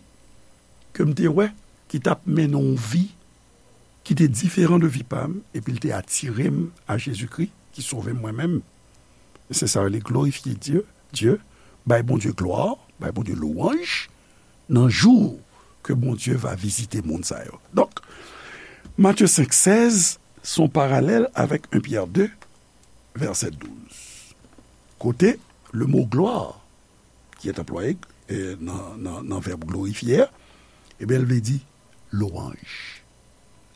ke m te wè, ki t ap mennen yon vi ki te diferan de vi pa m, epi l te atire m a Jezikri, ki sove m mwen menm. Se sa yo rele glorifye Dye, Dye, bay Bondye glwa, bay Bondye lwanj, nan jou ke Bondye va vizite moun sa yo. Donk, Matye senk sèz, se yon paralèl avèk un Pyè de, vèsè douz. Kote, le mo glwa, ki est employé, eh, nan, nan, nan vèb glorifye a, ebyen, l vle di lwanj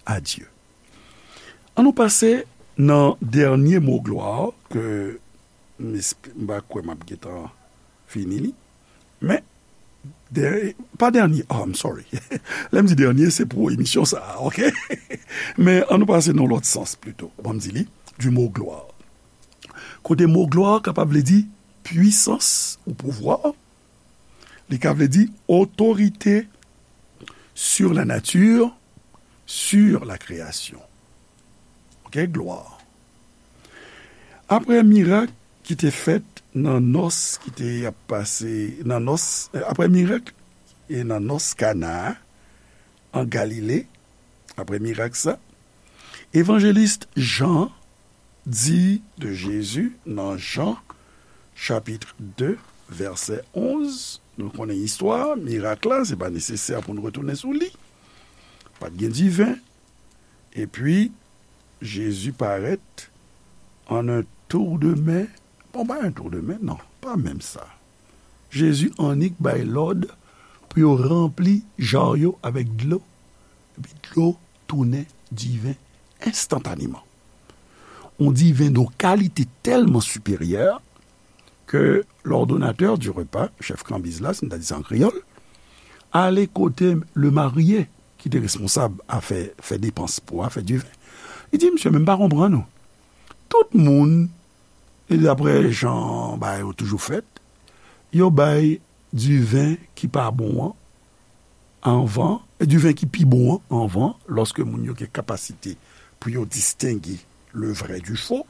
a Dye. An nou pase nan dènye mo glwa ke m esp-, m pa kwè m ap gentan fini li. Men, dè-, pa dènye, oh, I'm sorry. Lè m di dènye, se pou emisyon sa a, ok? Men an nou pase nan lòt sans plito. Ban m di li, du mot gloire. Kote mo glwa kapab vle di pwisans ou pouvwa, li ka vle di otorite sur la nature, sur la création. Ok, glwa. Apre mirak ki te fèt nan nòs ki te ap pase, nan nòs, apre mirak e nan nòs Kana an Galile, apre mirak sa, Evanjelis Jan di de Jezi nan Jan, chapit de, vèsè onz, nou konnen istwa, mirak la, se pa nesesè pou n retounen sou li. Pa t gen diven. Epi, Jezi parèt an un tour de main. Bon, pa un tour de main, non, pa menm sa. Jezi annik bay lòd pou yo ranpli jar yo avèk dlo, epi dlo tounen diven enstantaneman. On diven de kalite tèlman siperyè ke l'ordonnateur du repas, chèf kanbiz la, si n ta di sa an kreyòl, ale kote le marié ki te responsab afè fè depans pou afè diven. Li di, "Mesye, men m pa konprann ou. Tout moun, e daprè jan bagay yo toujou fèt, yo bay diven ki pa bon an anvan, e diven ki pi bon an anvan, lòske moun yo gen kapasite pou yo distenge le vrai du faux.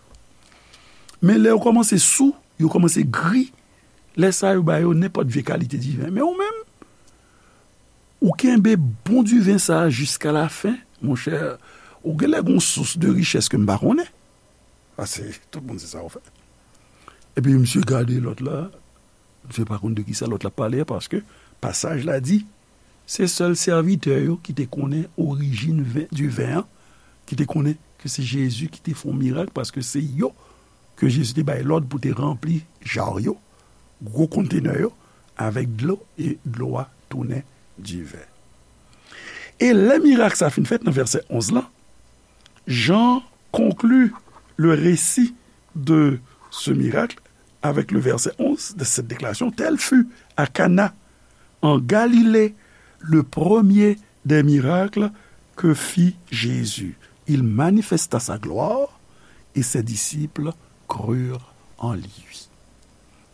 Men lè yo kòmanse sou, yo kòmanse gri, lè sa yo ba yo nenpòt vye kalite diven. Men ou menm, ou kenbe bon diven sa a jiska lafen, monchè, ou genlè gon sous de richès ke m pa konnen." Paske tout moun se sa yo fè. Epi misye gade lòt la, misye pa konn de kisa lòt la pale a, paske pasaj la di, se sèl sèvitè yo ki te konnen orijin ven, diven an, ki te konnen ke se Jezi ki te fè yon mirak, paske se yo ke Jezi te bay lòd pou te ranpli jar yo, gwo kontenè yo, avèk dlo, e dlo a tounen diven. E lè mirak sa fin fèt nan vèsè onz lan, Jean conclut le récit de ce miracle avec le verset onze de cette déclaration, Tel fut à Cana, en Galilée, le premier des miracles que fit Jésus. Il manifesta sa gloire et ses disciples crurent en lui.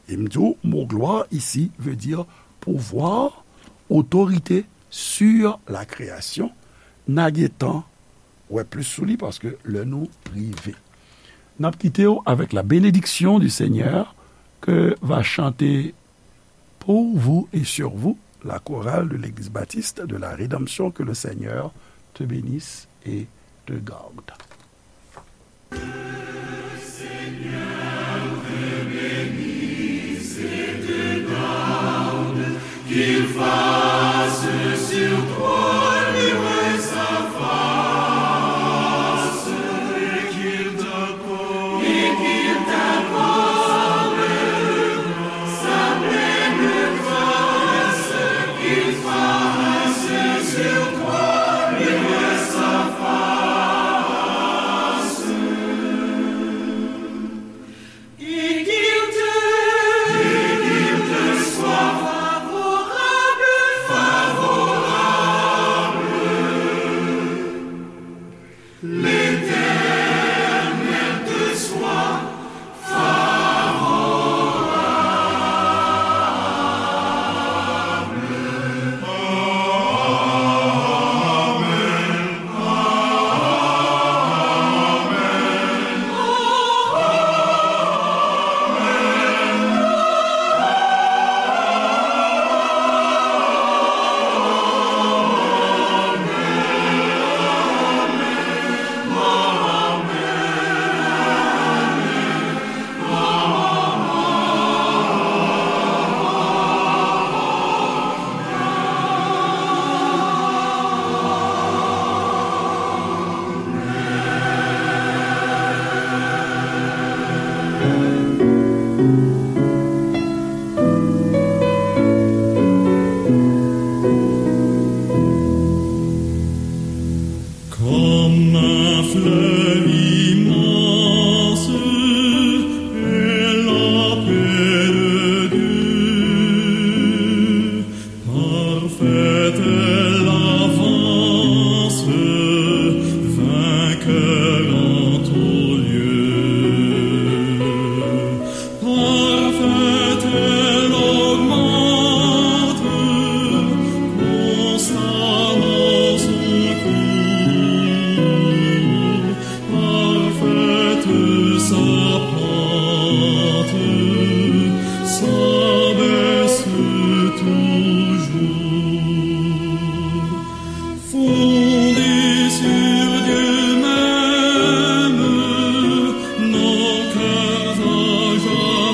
E m di w, mo gloire ici veut dire pouvoir, autorité sur la création. N a gentan wè plis sou li paske lè nou rive. N ap kite w avec la bénédiction du Seigneur que va chanter pour vous et sur vous la chorale de l'Église baptiste de la Rédemption. Que le Seigneur te bénisse et te garde.